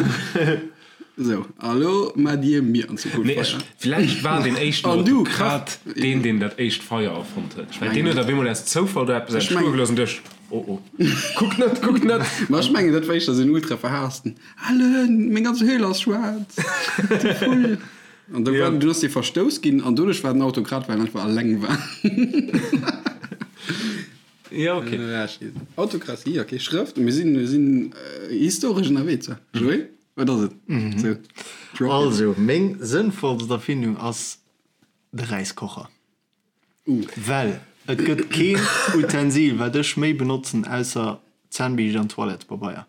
Esou, a lo maacht dir mir an Zukunft Nee, ech, Feier. vläicht war deen éischten An du, Autokrat Kach. deen, deen dat éischt Feier erfonnt huet. Well deen huet op eemol aus Zoufall do eppes Ech entstoe mengen. gelooss an duecht, Oh oh, kuckt net, kuckt net! Ma ech mengen, dat war éischter esou en ultra verhaassten, Ellen, meng ganz Höhl ass schwaarz, du Vull! An da war, dunn ass dee verstouss ginn an doduerch war den Autokrat, well en einfach alleng war. Jo, okay. Autokratie, okay, Schrëft, mir sinn, mir sinn historesch ënnerwee zwar. Joé, wat ass et? Sou, drop it. Also, meng sënnvollst Erfindung ass de Räiskocher. Well et gëtt keen Utensil wat ech méi benotzen ausser Zännbiischt an Toilettepabeier.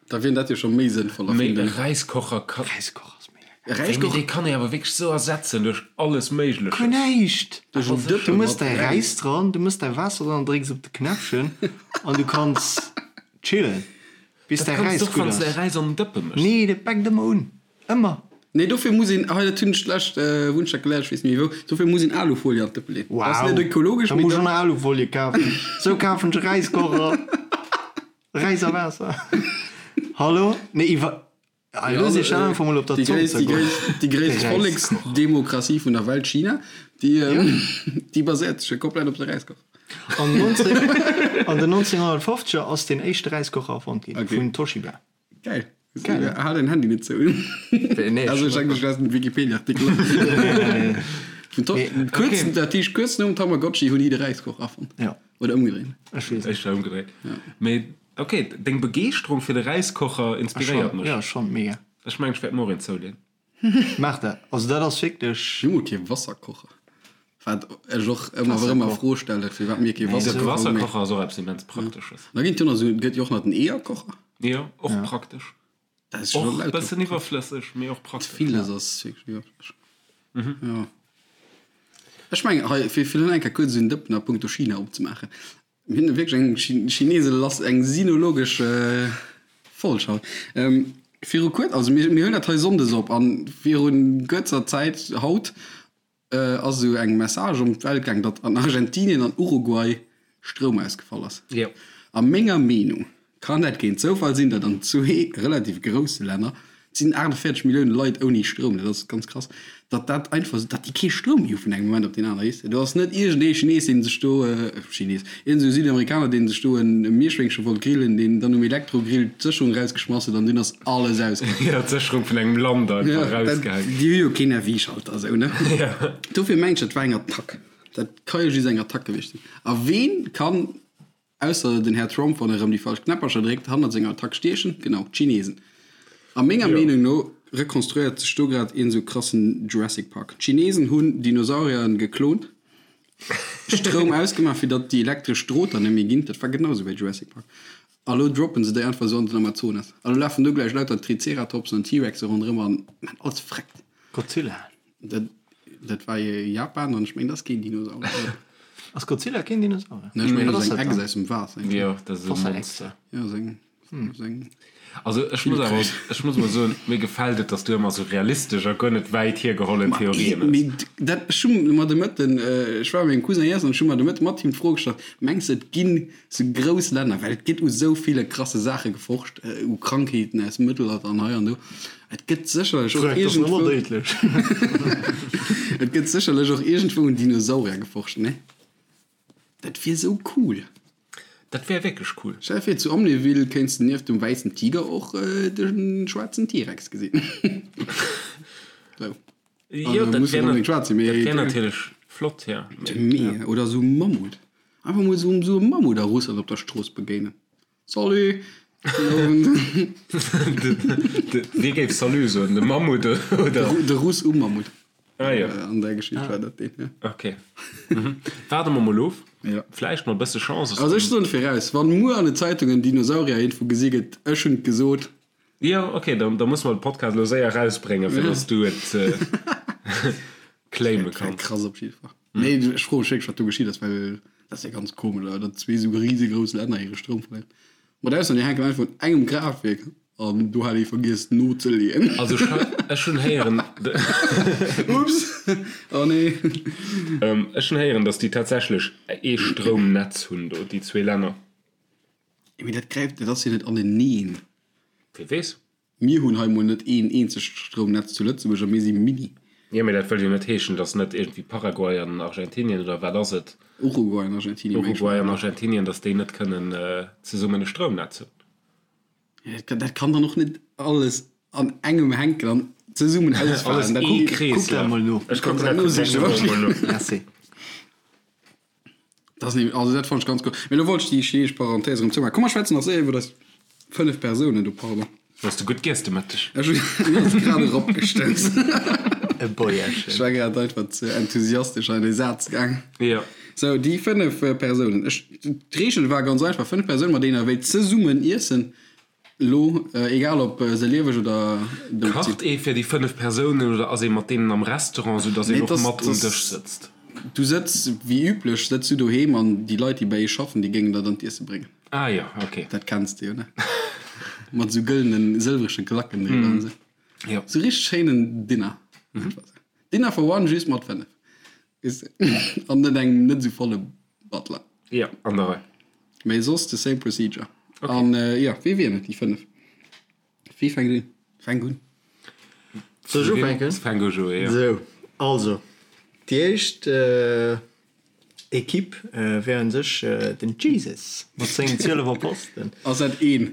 Da wier dat jo scho méi sënnvoll Mee e Erfindung. Räiskocher ka. Räiskocher ass mega E geil. Wéi, mee Räiskocher. dee kann ee awer wierklech sou ersetzen duerch alles Méigleches. Guer näischt! Duerch en Dëppe Du mëss mat däi Räis. Räis dran, du mëss däi Waasser dran, drécks op de Knäppchen an du kanns chillen bis Dat däi kanns Räis du och gutt wann s de däi ass. Räis an den Dëppe méchs. Nee, dat bäckt ëmmer un. Ëmmer. Nee, dofir muss een, hei dat hunn ech d'lescht Wunschtag geléiert, ech weess net méi wou, dofir muss een Alufolie an d'Dëppe leeën. Dat ass Wow, net ökologesch, da mee muss ech dat. och nach Alufolie kafen. Sou kafen ech e Räiskocher. Räis a Waasser. Hallo? Nee, iwwer. Ah, Ja, elo si ech einfach mol op der déi Zong gréisst, déi zergoen. gréisst, déi De gréisst Räiskocher. Volleksdemokratie vun der Welt, China, déi, déi baséiert sech jo komplett op de Räiskocher. An 19, an den 1950er ass den éischte Räiskocher erfonnt ginn, Okay. vun Toshiba. Geil. Geil. Hal den Handy net zou. Nee, Also ech denken, ech lesen den Wikipedia-Artikel. Vun to Nee, kuerz, dat heescht kuerz nom Tamagotchi hunn hi de Räiskoch erfonnt. Ja. Oder ëmgedréint. Ech weess net. Éischter ëmgedréint. Mee ok, deng Begeeschterung fir de Räiskocher inspiréiert mech. Jo, schonn mega. Ech mengen, ech wäert mer och een zouleeën. Maach dat. Also dat ass wierklech. Mir hu kee Wasserkocher. Wat ech och ëmmer erëm a Fro stellen, firwat mir kee Wasserkocher hunn. Wasserkocher ass och eppes immens Praktesches. Da ginn et jo nach esou, et gëtt jo och nach den Eeërkocher. Jo, och praktesch. Dat ass jo Och e bëssen iwwerflësseg, mee och praktesch. Villes ass wierklech iwwerflësseg. Jo. Ech mengen hei, fir fir elo eng Kéier kuerz en Dëppen a punkto China opzemaachen, Mir hunn wierklech eng Chinese lass, eng sinologesch Folg haut. Viru kuer, also mir mir hunn dat hei sonndes op an viru kuerzer Zäit haut ass esou eng Message ëm d'Welt gaang, datt an Argentinien an Uruguay Stroum ausgefall ass. A menger Meenung kann dat keen Zoufall sinn, datt an zwee relativ grousse Länner, et sinn 48 Millioune Leit ouni Stroum, dat ass ganz krass, datt dat einfach esou, datt déi kee Stroum méi hu vun engem Moment op deen anere, weess de. Do ass net iergendee Chines, dee sech do, Chines, iergend esou Südamerikaner, dee sech do e Mierschwéngche wollt grillen, deen dann um Elektrogrill d'Sécherung erausgeschmass huet an dunn ass alles ausgaangen. Jo, d'Sécherung vun engem Land einfach erausgehäit. Déi hu jo keen RV-Schalter esou, ne? Dofir mengen ech, dat war eng Attack. Dat ka jo just eng Attack gewiescht sinn. A ween kann Ausser den Här Trump, wann e rëm déi falsch Knäppercher dréckt, hannert senger Attack stiechen, genau, d'Chinesen. A menger Meenung no rekonstruéiert sech do grad een esou krassen Jurassic Park. D'Chinesen hunn Dinosaurieren geklont, Stroum ausgemaach fir datt déi elektresch Drohter net méi ginn, dat war genau esou wéi Jurassic Park, a lo droppen se déi einfach esou an den Amazonas. A lo lafen do gläich lauter Triceratopsen an T-Rexe ronderëm an man alles freckt. Godzilla. Dat, dat war jo Japan an ech mengen, dat ass keen Dinosaurier. Ass Godzilla keen Dinosaurier? Nee, ech mengen, dat ass eng Echse aus dem Waasser. Jo, dat ass e Monster. Jo, ass eng, ass eng. Also ech muss awer, ech muss mol soen, mir gefält et, dass du ëmmer sou realistesch a guer net wäit hiergehollen Theorien hues. Mee dat, ech hu mer de Mëtten, ech war bei mengem Cousin iessen an ech hu mer de Mëtte mat him d'Fro gestallt, Mengs de, et ginn sou grouss Länner, well et gëtt u sou ville krasse Saache geforscht, u Krankheeten aus dem Mëttelalter an hei an do, Et gëtt sécherlech och iergendwou. Et gëtt sécherlech och iergendwou un Dinosaurier geforscht, nee? Dat wier sou cool. Dat wär wierklech cool. Stell der vir, zu Amnéville kéints de nieft dem wäissen Tiger och de schwaarzen T-Rex gesinn. Sou. Jo, dat wär natierlech flott, jo. Mee, oder sou e Mammut. Einfach mol sou e Mammut a Russland op der Strooss begéinen. Salut! Wie géif Salut soen? De Mammut oder? De Russ um Mammut. Ah jo. An där Geschicht war dat deen, jo. Ok. Waarde mer mol of. Jo. Vläicht mat e bësse Chance ass. Also ech soen viraus, wann muer an de Zeitungen Dinosaurier iergendwou gesi gëtt, ech hunn et gesot. Jo, ok, da musse mer de Podcast elo séier erausbréngen, fir datt s du et claime Dat wär kanns. krass op jidde Fall. Nee, ech froe mech wierklech, wat do geschitt ass, well dat ass jo ganz komesch, awer datt zwee esou risegrouss Länner hire Stroum verléieren. Mat Ausnam, déi hänken einfach un engem Kraaftwierk an do hat ee vergiess nozeleeën. Also ech hunn héieren, Ups, oh nee. Ech hunn héieren, datt déi tatsächlech ee Stroumnetz hunn do, déi zwee Länner. Mee dat gräift, dat ass jo net aneneen. Wie weess. Mir hunn hei mol net een eenzegt Stroumnetz zu Lëtzebuerg a mir si mini. Jo, mee dat wëll jo net heeschen, datt net iergendwéi Paraguay an Argentinien oder wat ass et? Uruguay an Argentinien, meng ech. Uruguay an Argentinien, datt déi net kënnen zesummen e Stroumnetz hunn. Jo, dat kann dann och net alles an engem hänken an zesummen ausfalen. Alles Dat ee Kuck dat Kreeslaf. mol no. Ech kucken dat elo mol no. Merci. Dat ass nämlech, also dat fand ech ganz cool. Mee lo wollt ech déi chineesch Parenthèse erëm zoumaachen. Komm mer schwätzen nach séier iwwer eis 5 Persounen do, pardon. Hues de gutt giess de Mëtteg? Ech hunn, mir ass grad eropgestouss. E Bäuerchen. Ech war grad einfach ze enthusiastesch an dee Saz gaang. Jo. Sou, déi 5 Persounen. Ech, d'Reegel war ganz einfach, 5 Persounen, mat deenen der wéilt zesummen iessen. Lo, egal ob se lieweg oder dout sinn. Kacht ee fir déi 5 Persounen oder ass ee mat deenen am Restaurant, sou dass een och mat um Dësch sëtzt? Du sëtz wéi üblech sëtz du doheem an déi Leit déi bei eech schaffen déi géingen der dann d'Iesse bréngen. Ah jo, ok. Dat kenns de jo, ne? Mat sou gëllenen, sëlwrege Glacken driwwer an sou. Jo. Sou richteg schéinen Dinner. Dinner for one just mat 5. Weess de? An net engem net sou volle Butler. Jo, an der Rei. Mee soss the same procedure. Okay. An jo, wee wieren et, déi 5? Wee fänkt un? Fänk un. Soll ech ufänken? Fänk u, Joé, jo. Sou, also, déi éischt. Equipe wär un sech den Jesus mat sengen 12 Apostelen. Ass dat een?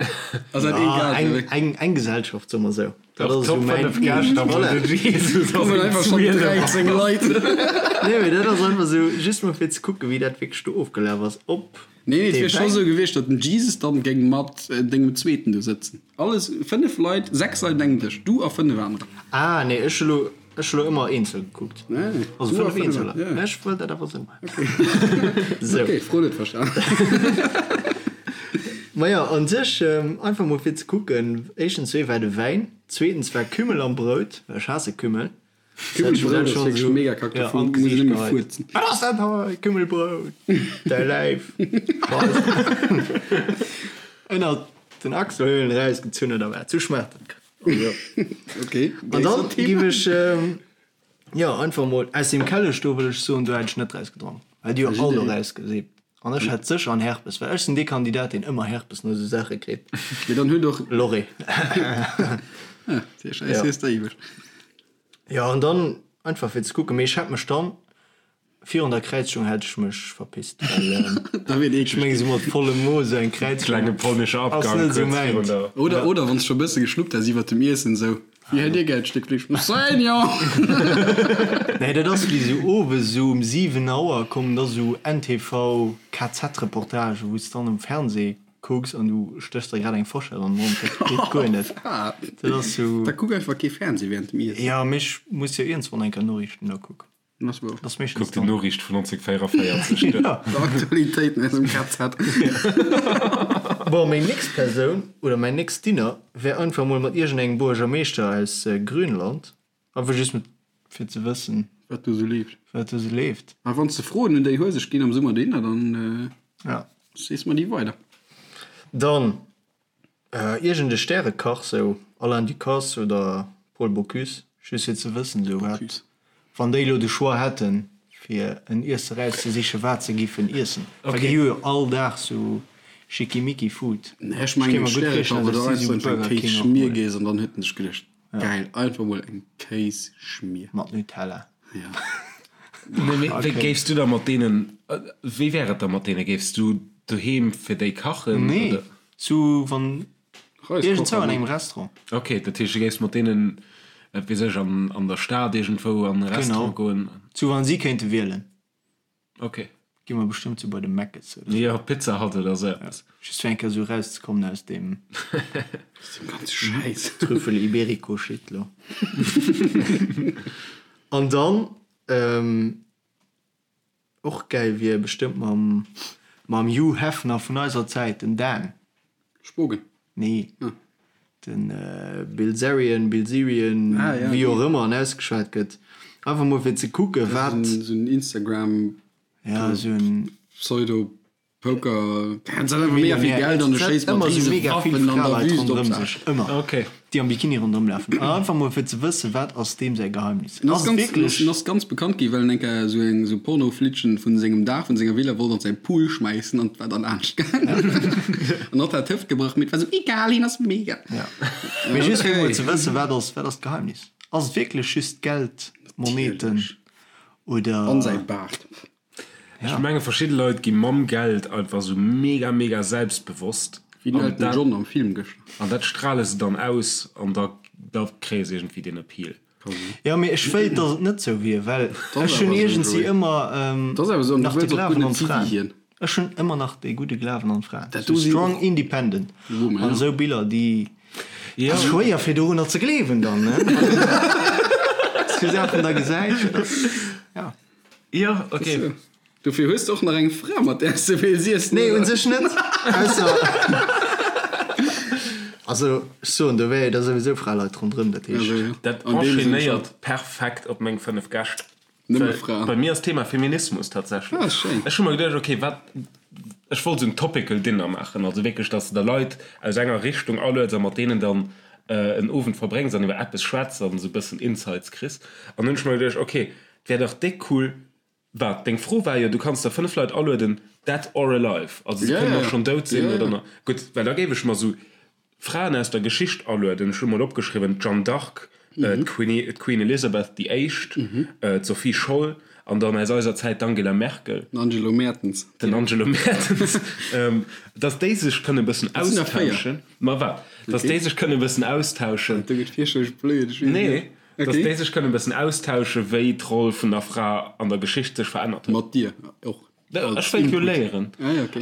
Ass dat een Gast? Eng, eng, eng Gesellschaft, soe mer sou. Dat ass Top esou mäin 5 Gäscht a Voilà. den Jesus ass Kommen een einfach schonn 12. 13 Leit. Nee, mee dat ass einfach sou, just mol fir ze kucken, wéi dat wierklech do ofgelaf ass, ob Nee, nee, et dee wier scho Wäin. sou gewiescht, datt den Jesus dann géing mat dengem Zweeten do sëtzen. Alles, 5 Leit, 6 Leit un engem Dësch, du a 5 anerer. Ah, nee, ech hu lo. Ech hu lo ëmmer eenzel gekuckt. Nee, Also du a 5 Eenzeler. ja. Ech wëll dat awer sou maachen. Sou. Okay, Fro net verstan. Maja, an sech einfach mol fir ze kucken, éischtens wéi war de Wäin, zweetens war Kümmel am Brout, well ech haasse Kümmel. Kümmelbrout ass wierklech mega kack, Ja, dovun an muss een d'Gesiicht nëmme geheit. fuerzen. Wat ass dat hei? Kümmelbrout! Däi Läif! Ënnert den Achselhöhlen erausgezunn oder wat? Sou schmaacht dat. Okay. An dann giff ech jo einfach mol aus dem Kellech do wëll ech soen, do hätt ech net draus gedronk, well déi hu all do rausgesippt an ech hat sécher en Herpes, well ech sinn dee Kandidat deen ëmmer Herpes no esou Saache kritt. Mee dann huet och. Lorry. Ah, déi Schäiss hues de iwweg. Jo an dann einfach fir ze kucken, mee ech hätt mech dann Virun der Kräizung hätt ech mech verpisst, well Da wier et ech eeklech meng ginn. sou mat vollem Mo sou eng Kräizung Klenge polnesche ass Abgang net sou kuerz virun mäint. der. Oder, oder wann s scho bësse geschnuppt häss iwwert dem Iessen, sou, Wéi hätt Dir gär d'Stéck Fleesch? Seigneur! Nee, dat ass wéi sou owes sou um 7 Auer kommen da sou NTV KZ-Reportagen, wou s dann um Fernseh kucks an du stéchs der grad eng Forschett an den Mond, dat geet guer net. Dat ass sou. Da kuck einfach kee Fernseh während dem Iessen. Jo, mee ech muss jo iergendswann eng Kéier Noriichten da kucken. Das ass Kuck déi Noriicht vun 1944 duer. Aktualitéiten aus dem KZ. Bon, meng nächst Persoun oder mäin nächst Dinner wär einfach mol mat iergendengem Buergermeeschter aus Grönland. Einfach just mat fir ze wëssen. Wat do sou leeft. Wat do sou leeft. A wann s de Froen un déi Hueseg ginn am Summer Dinner, dann sees mer déi weider. Dann Iergend e Stärekach, sou Alain Ducasse oder Paul Bocuse, just fir ze wëssen, sou wat, wann déi elo de Choix hätten, fir en Iesse rauszesichen, wat se giffen iessen, well déi hu jo all Dag sou schickimicki Food. Nee, ech mengen e Stärekach oder einfach eng Kéisschmier geess an dann huet en sech geduecht, geil, einfach mol eng Kéisschmier. Mat Nutella. Ja. Nee, mee wéi géifs du da mat deenen, wéi wär et da mat deenen? Géifs du doheem fir déi kachen? Nee, oder? sou wann iergendzou an engem Restaurant. Ok, dat heescht du géifs mat deenen, wat weess ech, an, an der Stad iergendwou an e Restaurant goen? Genau, sou wann si kéinte wielen. Ok. Gi mer bestëmmt sou bei de Mc's oder sou. Jo, Pizza Hut oder sou eppes. Just fir eng Kéier sou erauszekommen aus deem. Aus deem ganze Schäiss. Trüffel Iberico Shit lo. An dann och gäil wier bestëmmt mam mam Hugh Hefner vun eiser Zäit, den Dan. Spogen? Nee. Den Bilzerian, Bilzerian, wéi och ëmmer en ausgeschwat gëtt. Einfach mol fir ze kucken, wat. Esou en Instagram. Ja, esou en. Pseudo Poker. Hien hat einfach mega vill Geld an e schéisst mat Ëmmer esou rise mega vill Waffen an der Fraleit Wüst op ronderëm Saach. sech. Ëmmer. Okay. Déi am Bikini ronderëm lafen. An einfach mol fir ze wëssen, wat ass deem säi Geheimnis. En ass Ass et ganz, wierklech. en ass ganz bekannt gi well en eng Kéier esou eng esou Pornoflittchen vun sengem Daach vun senger Villa wollt an säi Pool schmäissen an et war dann anescht gaangen. An hatt hat d'Hëft gebrach, mee et war esou egal, hien ass mega. Ja. Mee just fir mol Okay. ze wëssen, wat ass, wat ass d'Geheimnis? Ass et wierklech just Geld, Moneten Natierlech. oder. An säi Baart. Ech menge verschidde Leit gi mam Geld einfach sou mega mega selbstbewosst. Wéi den Elton John am Film gëschter. An dat strale se dann aus an da da kréie se iergendwéi deen Appeal. Jo mee ech wéilt dass et net sou wier, well ech hunn iergendsi ëmmer nach de Glawen an d'Fraen. Ech hunn ëmmer nach dee gudde Glawen an d'Fraen. Sou strong independent an esou Biller déi ass schwéier fir dorunner ze gleewen dann ne. Sou Saachen da gesäit, dat ass ja. Jo, ok. Dofir hues de och nach eng Fra, mat där s de wéils iessen, Nee, oder? un sech net. Ausser, also ech soen, do wäre jo da souwisou Fraleit ronderëm, dat heescht. Also, jo. Dat An deem Sënn enchaînéiert perfekt op meng 5 Gäscht. Nëmme Well Fraen. bei mir ass Thema Feminismus tatsächlech. Ah, schéin. Ech hu mer geduecht, ok, wat, ech wollt esou en topical Dinner maachen, also wierklech, dass de der Leit aus enger Richtung alueds a mat deenen dann en Owend verbréngs an iwwer eppes schwätz an esou e bëssen Insights kriss. An hunn ech mer geduecht, ok, Wär dach déck cool. Wat? Deng Fro war jo, du kanns der 5 Leit alueden, dead or alive. Also se kënnen och schonn dout sinn oder nach. Gutt, well da géif ech mer sou Fraen aus der Geschicht alueden. Ech hu mol opgeschriwwen, d'Jeanne d'Arc, D'Queen Elizabeth déi Éischt, d'Sophie Scholl an dann aus eiser Zäit d'Angela Merkel. Den Angelo Mertens. Den Angelo Mertens. Datt déi sech kënne e bëssen austauschen. Ma wat? Datt déi sech kënne e bëssen austauschen. Do gëtt fierchterlech blöd, ech weess net. Nee, datt déi sech kënne e bëssen austauschen, wéi d'Roll vun der Fra an der Geschicht sech verännert huet. Mat dir och. Ech wéilt jo léieren.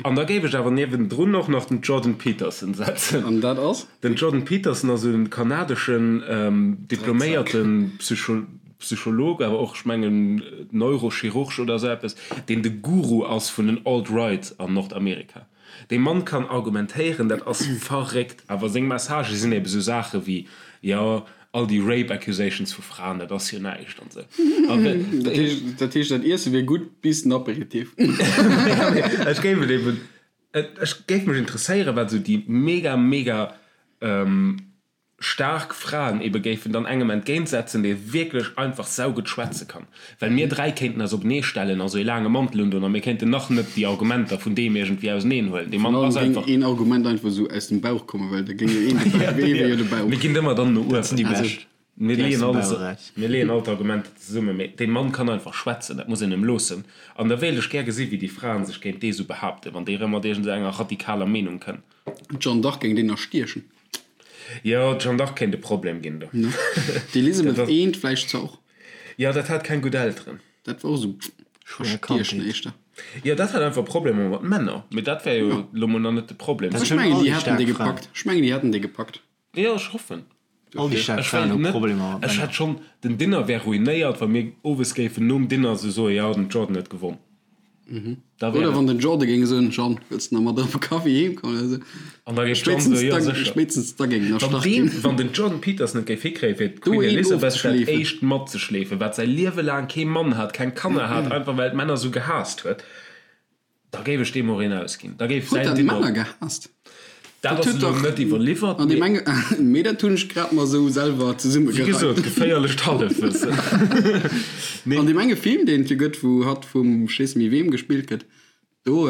An da géif ech awer niewendrun och nach den Jordan Peterson setzen. An dat ass? Den Jordan Peterson ass e kanadeschen diploméierte Psycholog, awer och, ech mengen, Neurochirurg oder esou eppes, deen de Guru ass vun den Alt-Right an Nordamerika. Dee Mann kann argumentéieren, dat ass verréckt. Awer seng Messagë sinn ebe sou Saache wéi, jo, all déi Rape accusations vu Fraen, dat ass jo näischt an esou. Dat heescht, dat heescht, dat Iesse wier gutt bis den Aperitif. Ech géif et eben, ech géif mech interesséieren, wat esou déi mega, mega staark Fraen ebe géifen dann engem entgéintsetzen, dee wierklech einfach saugutt schwätze kann. Well mir 3 kéinten eis openee stellen a sou ee laange Mantel undoen a mir kéinten nach net déi Argumenter vun deem iergendwéi auseneen huelen. Dee Mann ass einfach. Géing een Argument einfach esou aus dem Bauch kommen, well da géing jo een de Bauch, ee wier jo de Bauch. Mir ginn ëmmer dann no uewen. Déi bescht. Mir leeën alles, mir leeën all d'Argumenter zesummen, mee dee Mann kann einfach schwätzen, dat muss een em loossen. An da wéilt ech gär gesi wéi déi Fraen sech géint dee sou behaapten, wann dee rëm mat iergend esou enger radikaler Meenung kënn. D'Jeanne d'Arc géing deen erstiechen. Jo, d'Jeanne d'Arc kéint e Problem ginn do. D'Elisabeth I vläicht zwar och. Jo, dat hat keng gutt Elteren. Dat war och esou erstiechen éischter. Jo, dat hat einfach Problemer mat Männer. Mee dat wär jo elo mol nach net de Problem. Ech mengen, déi hätten déi gepackt. Ech mengen, déi hätten déi gepackt. Jo, ech hoffen. All déi staark Fraen hu Problemer mat Männer. Ech hätt schonn, den Dinner wär ruinéiert, wa mir owes géifen nom Dinner esou soen, jo, den Jordan huet gewonn. Da wär Oder wann den Jordan géing soen, Jeanne, wëlls de nach mat op e Kaffi heem kommen oder esou. An da géif d'Jeanne soen, jo, sécher. Spéitstens da géing en Wann erstach deen, ginn. wann den Jordan Peterson et géif hikréien, fir d'Queen Elizabeth dat éischt matzeschleefen, wat säi Liewe laang kee Mann hat, keng Kanner hat, einfach well d'Männer esou gehaasst huet, Da géif ech deem och een ausginn. Da géif Huet säin dat Dinner. Männer gehaasst? Dat ass elo net iwwerliwwert, mee. Mee dat hunn ech grad mer esou selwer Wéi zesummegereimt. gesot, geféierlecht Hallefwëssen. Nee. An deem enge Film, deen et jo gëtt, wou hatt vum ech weess net méi weem gespillt gëtt, do,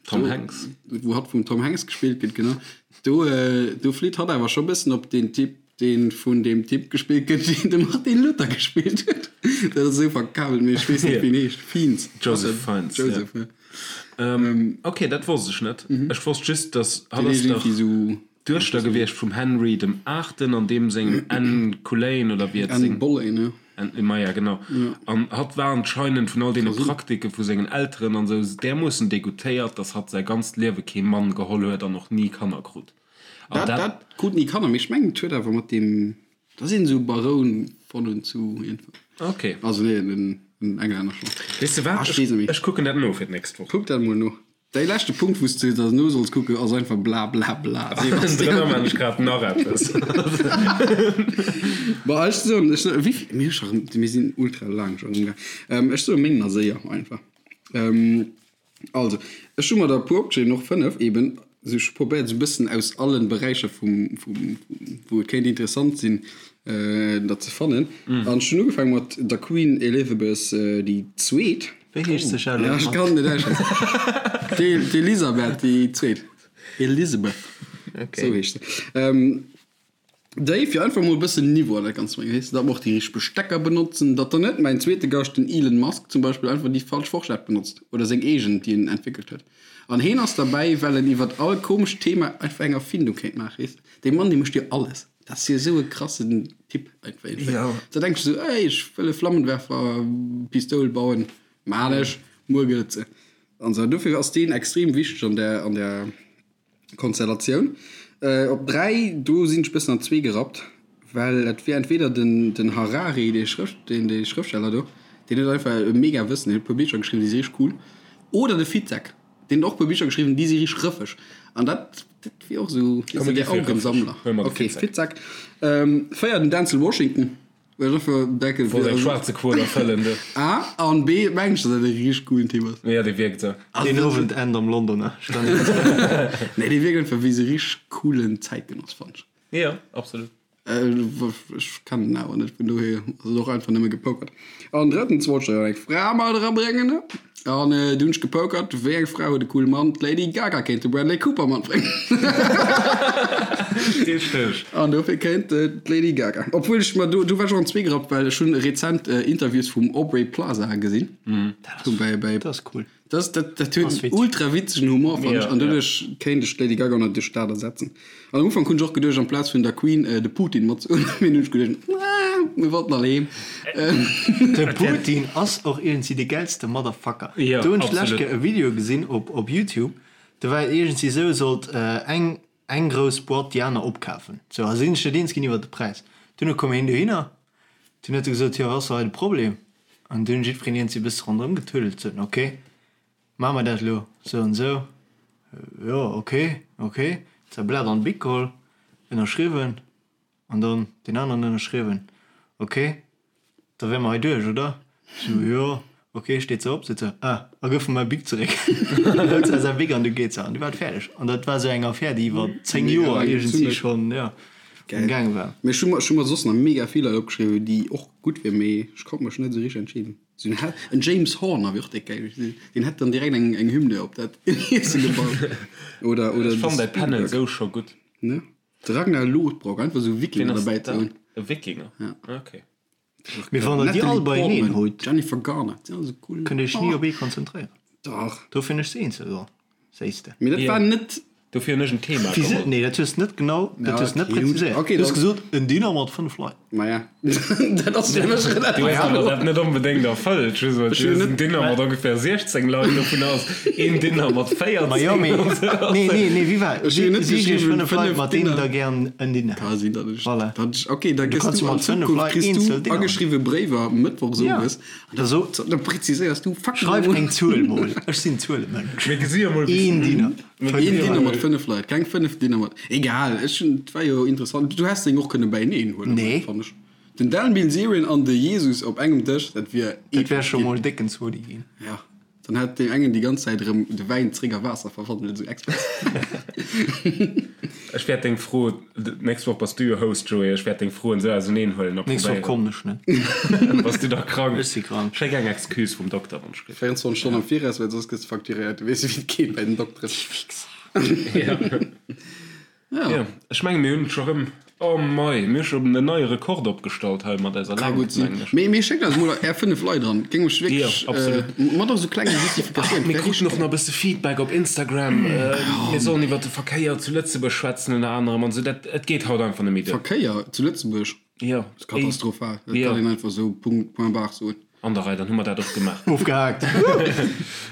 Tom Hanks. Wou hatt vum Tom Hanks gespillt gëtt, genau, do, do flitt hatt awer scho bëssen op deen Typ, deen vun deem Typ gespillt gëtt, deen de Martin Luther gespillt huet. Dat ass esou verkabelt, mee ech weess net, wéi en heescht. Fiennes. Joseph Fiennes, ja. Joseph, ja. Ok, dat wosst ech net. Ech wosst just, dass hatt ass dach d'Duechter gewiescht vum Henry dem Aachten an deem sengem Anne Cullein oder wéi et seng. Anne Boleyn, ja. Anne, maja, genau. An hatt war anscheinend vun all deene Praktike vu sengen Elteren an esou därmoossen degoutéiert, dass hatt säi ganzt Liewe kee Mann geholl huet an och ni Kanner krut. An Dat, dat krut ni Kanner, mee ech mengen et huet awer mat deem, da sinn esou Baroun von und zu iergendwann. Ok. Also nee, en en Englänner schonn. Weess de wat, ech weess net méi. Ech kucken dat no fir d'nächst Woch. Kuck dat mol no. Däi leschte Punkt, wou s de da no solls kucken, ass einfach bla bla bla. Drënner man ech grad nach eppes. Bon, ech soen, ech soen, wéi vill, mir hu scho rëm, mir sinn ultra laang scho erëm gaang. Ech soe meng nach séier einfach. Also, ech hu mer der e puer opgeschriwwen, och 5 eben. Also ech hu probéiert esou e bëssen aus allen Beräicher vum, vum, wou et kéint interessant sinn, der ze fannen. An ech hunn ugefaange mat der Queen Elizabeth déi Zweet. Wéi heescht se, Charlotte? Ja, ech kann et net aussschwätzen. D'Elisabeth déi Zweet. Elizabeth, esou heescht se. Déi, fir einfach mol e bëssen Niveau an dat Ganzt ze bréngen, weess de, datt mer och déi richteg Bestecker benotzen, datt dann net mäin zweete Gast, den Elon Musk zum Beispill, einfach déi falsch Forschett benotzt oder seng eegen, déi en entwéckelt huet. An heen ass derbäi, well en iwwert all komescht Thema einfach eng Erfindung kéint maachen, weess de. Dee Mann, dee mécht jo alles. Dat ass jo esou e krassen Typ einfach iergendwéi. Da denks de esou, ey, ech wëll e Flammenwerfer-Pistoul bauen, maan ech, muer gëtt et se. An esou. Dofir ass deen extrem wichteg an där, an där. Konstellatioun. Op 3, do sinn ech bëssen an zwee gerappt, well et wier entweder den den Harari, dee Schrëft, deen dee Schrëftsteller do, deen huet einfach e mega Wëssen, deen huet e puer Bicher geschriwwen, déi si richteg cool, oder de Fitzek, deen huet och e puer Bicher geschriwwen, déi si richteg rëffeg. An dat dat wier och esou, weess de, der Augensammler. Ok, Fitzek. 4, den Denzel Washington. Well ech einfach denken, Wollt eng schwaarze Quot erfëllen, du. A an B mengen ech, dass dat e richteg coolen Typ ass. Jo, dee wierkt esou. Deen Owend end am Londoner Stadion. Nee, dee wierkt einfach wéi esou richteg coolen Zäitgenoss, fannen ech. Jo, absolut. Ech kennen en awer net, vun dohier ass et och einfach nëmme gepokert. An drëttens wollt ech da jo eng Fra mat erabréngen, ne? An du hunn ech gepokert, wéi eng Fra huet e coole Mann? D'Lady Gaga kéint de Bradley Cooper matbréngen. Richteg. An dofir kéint d'Lady Gaga. Obwuel ech mer do, do war ech och an zweegerappt, well ech hunn rezent Interviews vum Aubrey Plaza gesinn. Dat ass, Bei, bei, dat ass cool. Dat, dat, dat huet Ass en witzeg. ultra witzegen Humor, fannen Ja, ech. An ja. doduerch kéint ech d'Lady Gaga natierlech dat ersetzen. An am Ufank hunn ech och geduecht, amplaz vun der Queen de Putin matzehuelen, mee dunn hunn ech geduecht, ah, mir wollten all heem. De Putin ass och iergendwéi de gäilste Motherfucker. Ja, Do hunn ech d'lescht absolut. Kéier e Video gesinn op op Youtube, do war et iergendwéi esou, sollt eng eng grouss Boîte déi aner opkafen. Sou, a si sinn sech net eens ginn iwwer de Präis. Dunn koum hien dohinner, dunn huet e gesot, jo, wat ass da hei de Problem? An dunn huet jiddwereen iergendwéi e bësse ronderëm getuddelt, sot en, ok, Maache mer dat elo sou an sou? Jo, ok, ok. Säi Blat an d'Bic geholl, ënnerschriwwen an dann deen aneren ënnerschriwwen. Ok, da wäre mer hei duerch, oder? Sou, jo, ok. Steet se op, seet se, ah, a gëff mer mäi Bic zeréck. Hëlt se säi Bic an du geet se. An du war et fäerdeg. An dat war sou eng Affär, déi iwwer 10 Joer iergendwéi schonn, jo, am gaange war. Mee ech hu mer, ech hu mer soss nach mega vill Leit opgeschriwwen, déi och gutt wieren, mee ech konnt mech net esou richteg entscheeden. Sou en en James Horner wier och déck geil. Deen hätt dann direkt eng eng Hymne op dat Iesse gebaut. Oder oder Ech de fannen däi Panel Spielberg. sou scho gutt. Ne? De Ragnar Lothbrok, einfach sou Ween Wikinger ass derbäi ze dat? hunn. E Wikinger? Ja. Okay. Mee wann der déi Natalie all beieneen Portman, hutt, Jennifer Garner, dat sinn all sou cool. kënnt dir iech ni op ee konzentréieren. Dach. Dofir hunn ech se eenzel geholl, séis de. Mee dat war net. Dofir hunn ech en Thema Wéi se? geholl. Nee, dat hues de net genau, dat Ja, hues de net okay, präziséiert. okay, Du hues dann- gesot, en Dinner mat 5 Leit. Maja, dat ass fir mech relativ Du hues awer kloer. dat net onbedéngt erfëllt. Just well Ech du hunn hues en net. Dinner mat ongeféier 16 Leit, dovun ass een Dinner mat Ma jo, 14 mee, an sou. nee, nee, nee, wéi war? Ech hunn net Si iech geschriwwen, 5 Leit, 5 mat deenen Dinner. der gären en Dinner Ka hätt. sinn, datt ech, Voilà. datt ech, okay, da Du gëss kanns du jo an mat 5 Zukunft Leit kriss du eenzel Dinneren. ageschriwwe Bréiwer mëttwochs Ja. owes an Da so, da präziséiers du fucking schreif emol. eng Zuel mol. Ech sinn Zuelemënsch. Mir gesi jo mol bis. Een Dinner. Een 5 Dinner Leit. mat 5 Leit, keng 5 Dinner mat. Egal, ech hunn, et war jo interessant. Du häss deng och kënne beieneen huelen, Nee. fannen ech. Den Dan Bilzerian an de Jesus op engem Dësch, dat wier Dat wär epesch scho ginn. mol décken Zodi ginn. Ja, dann hätt deen engen déi ganz Zäit erëm de Wäin zréck a Waasser verwandelt, esou express. Ech wäert deng Fro, d'nächst Woch bass du jo Host, Joé, ech wäert deng Froen esou auseneen huelen a D'nächst Woch probéieren. kommen ech net. Bass du da krank? Ech si krank. Schéck eng Excuse vum Dokter, wann ech kritt. 24 Stonnen am Viraus, well soss gëss de facturéiert. Du weess jo, wéi et geet bei den Dokteren. Ja. Ja. Ja, ech menge mir hunn scho rëm, oh mei, mir hu scho en neie Rekord opgestallt hei mat eiser Ka Längt, gutt sinn. mengen ech. Mee, mee schéckt eis mol är 5 Leit eran. Géing mech Jo, wierklech, absolut. äh, mat och sou klenge Justifikatiounen. Mir Wär kruten richteg och nach e bësse Feedback op Instagram. Mir sollen iwwer de Verkéier zu Lëtzebuerg schwätzen ënner anerem an esou. Dat, et geet haut einfach net méi duer. Verkéier zu Lëtzebuerg? Jo. Ass katastrophal. Dat Jo. kann een einfach sou Punkt, point barre soen. An der Rei, dann hu mer dat och gemaach. Ofgehaakt.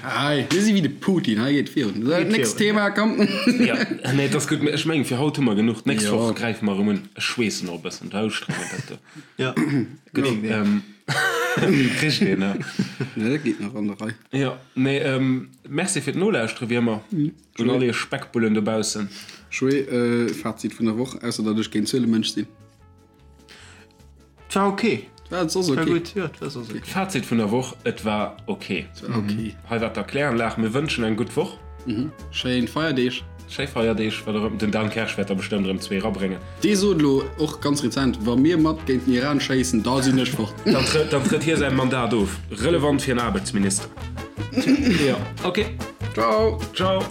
Hei, mir si wéi de Putin, hei geet virun. So, Geet nächst virun. Thema, komm. Ja, nee, et ass gutt. Ech mengen, fir haut hu mer genuch. D'nächst Jo. Woch gräife mer erëm un. Ech schweessen och e bëssen, dat ustrengend, dat do. Ja. Gutt, ähm, kricht een, ja. Nee, dat geet nach an der Rei. Jo, nee, ähm, merci fir d'Nolauschteren, wéi ëmmer, un all iech Speckbullen dobaussen. Joé, äh, Fazit vun der Woch, ausser datt ech géint Zuelemënsch sinn. Et war ok. Et war soss War ok. gutt, jo, et war soss ok. Fazit vun der Woch, Et war ok. Et war ok. Hei war d'Erkläranlag. Mir wënschen eng gutt Woch. Schéin Feierdeeg. Schéi Feierdeeg. Wat och ëmmer. Den Dan Kersch wäert der bestëmmt erëm zwee erabréngen. Dee sot elo och ganz rezent, Wa mir mat géint den Iran schéissen, da sinn ech fort. Dann trëtt, dann trëtt hie säi Mandat of. Relevant fir en Aarbechtsminister. Jo, ok. Ciao. Ciao.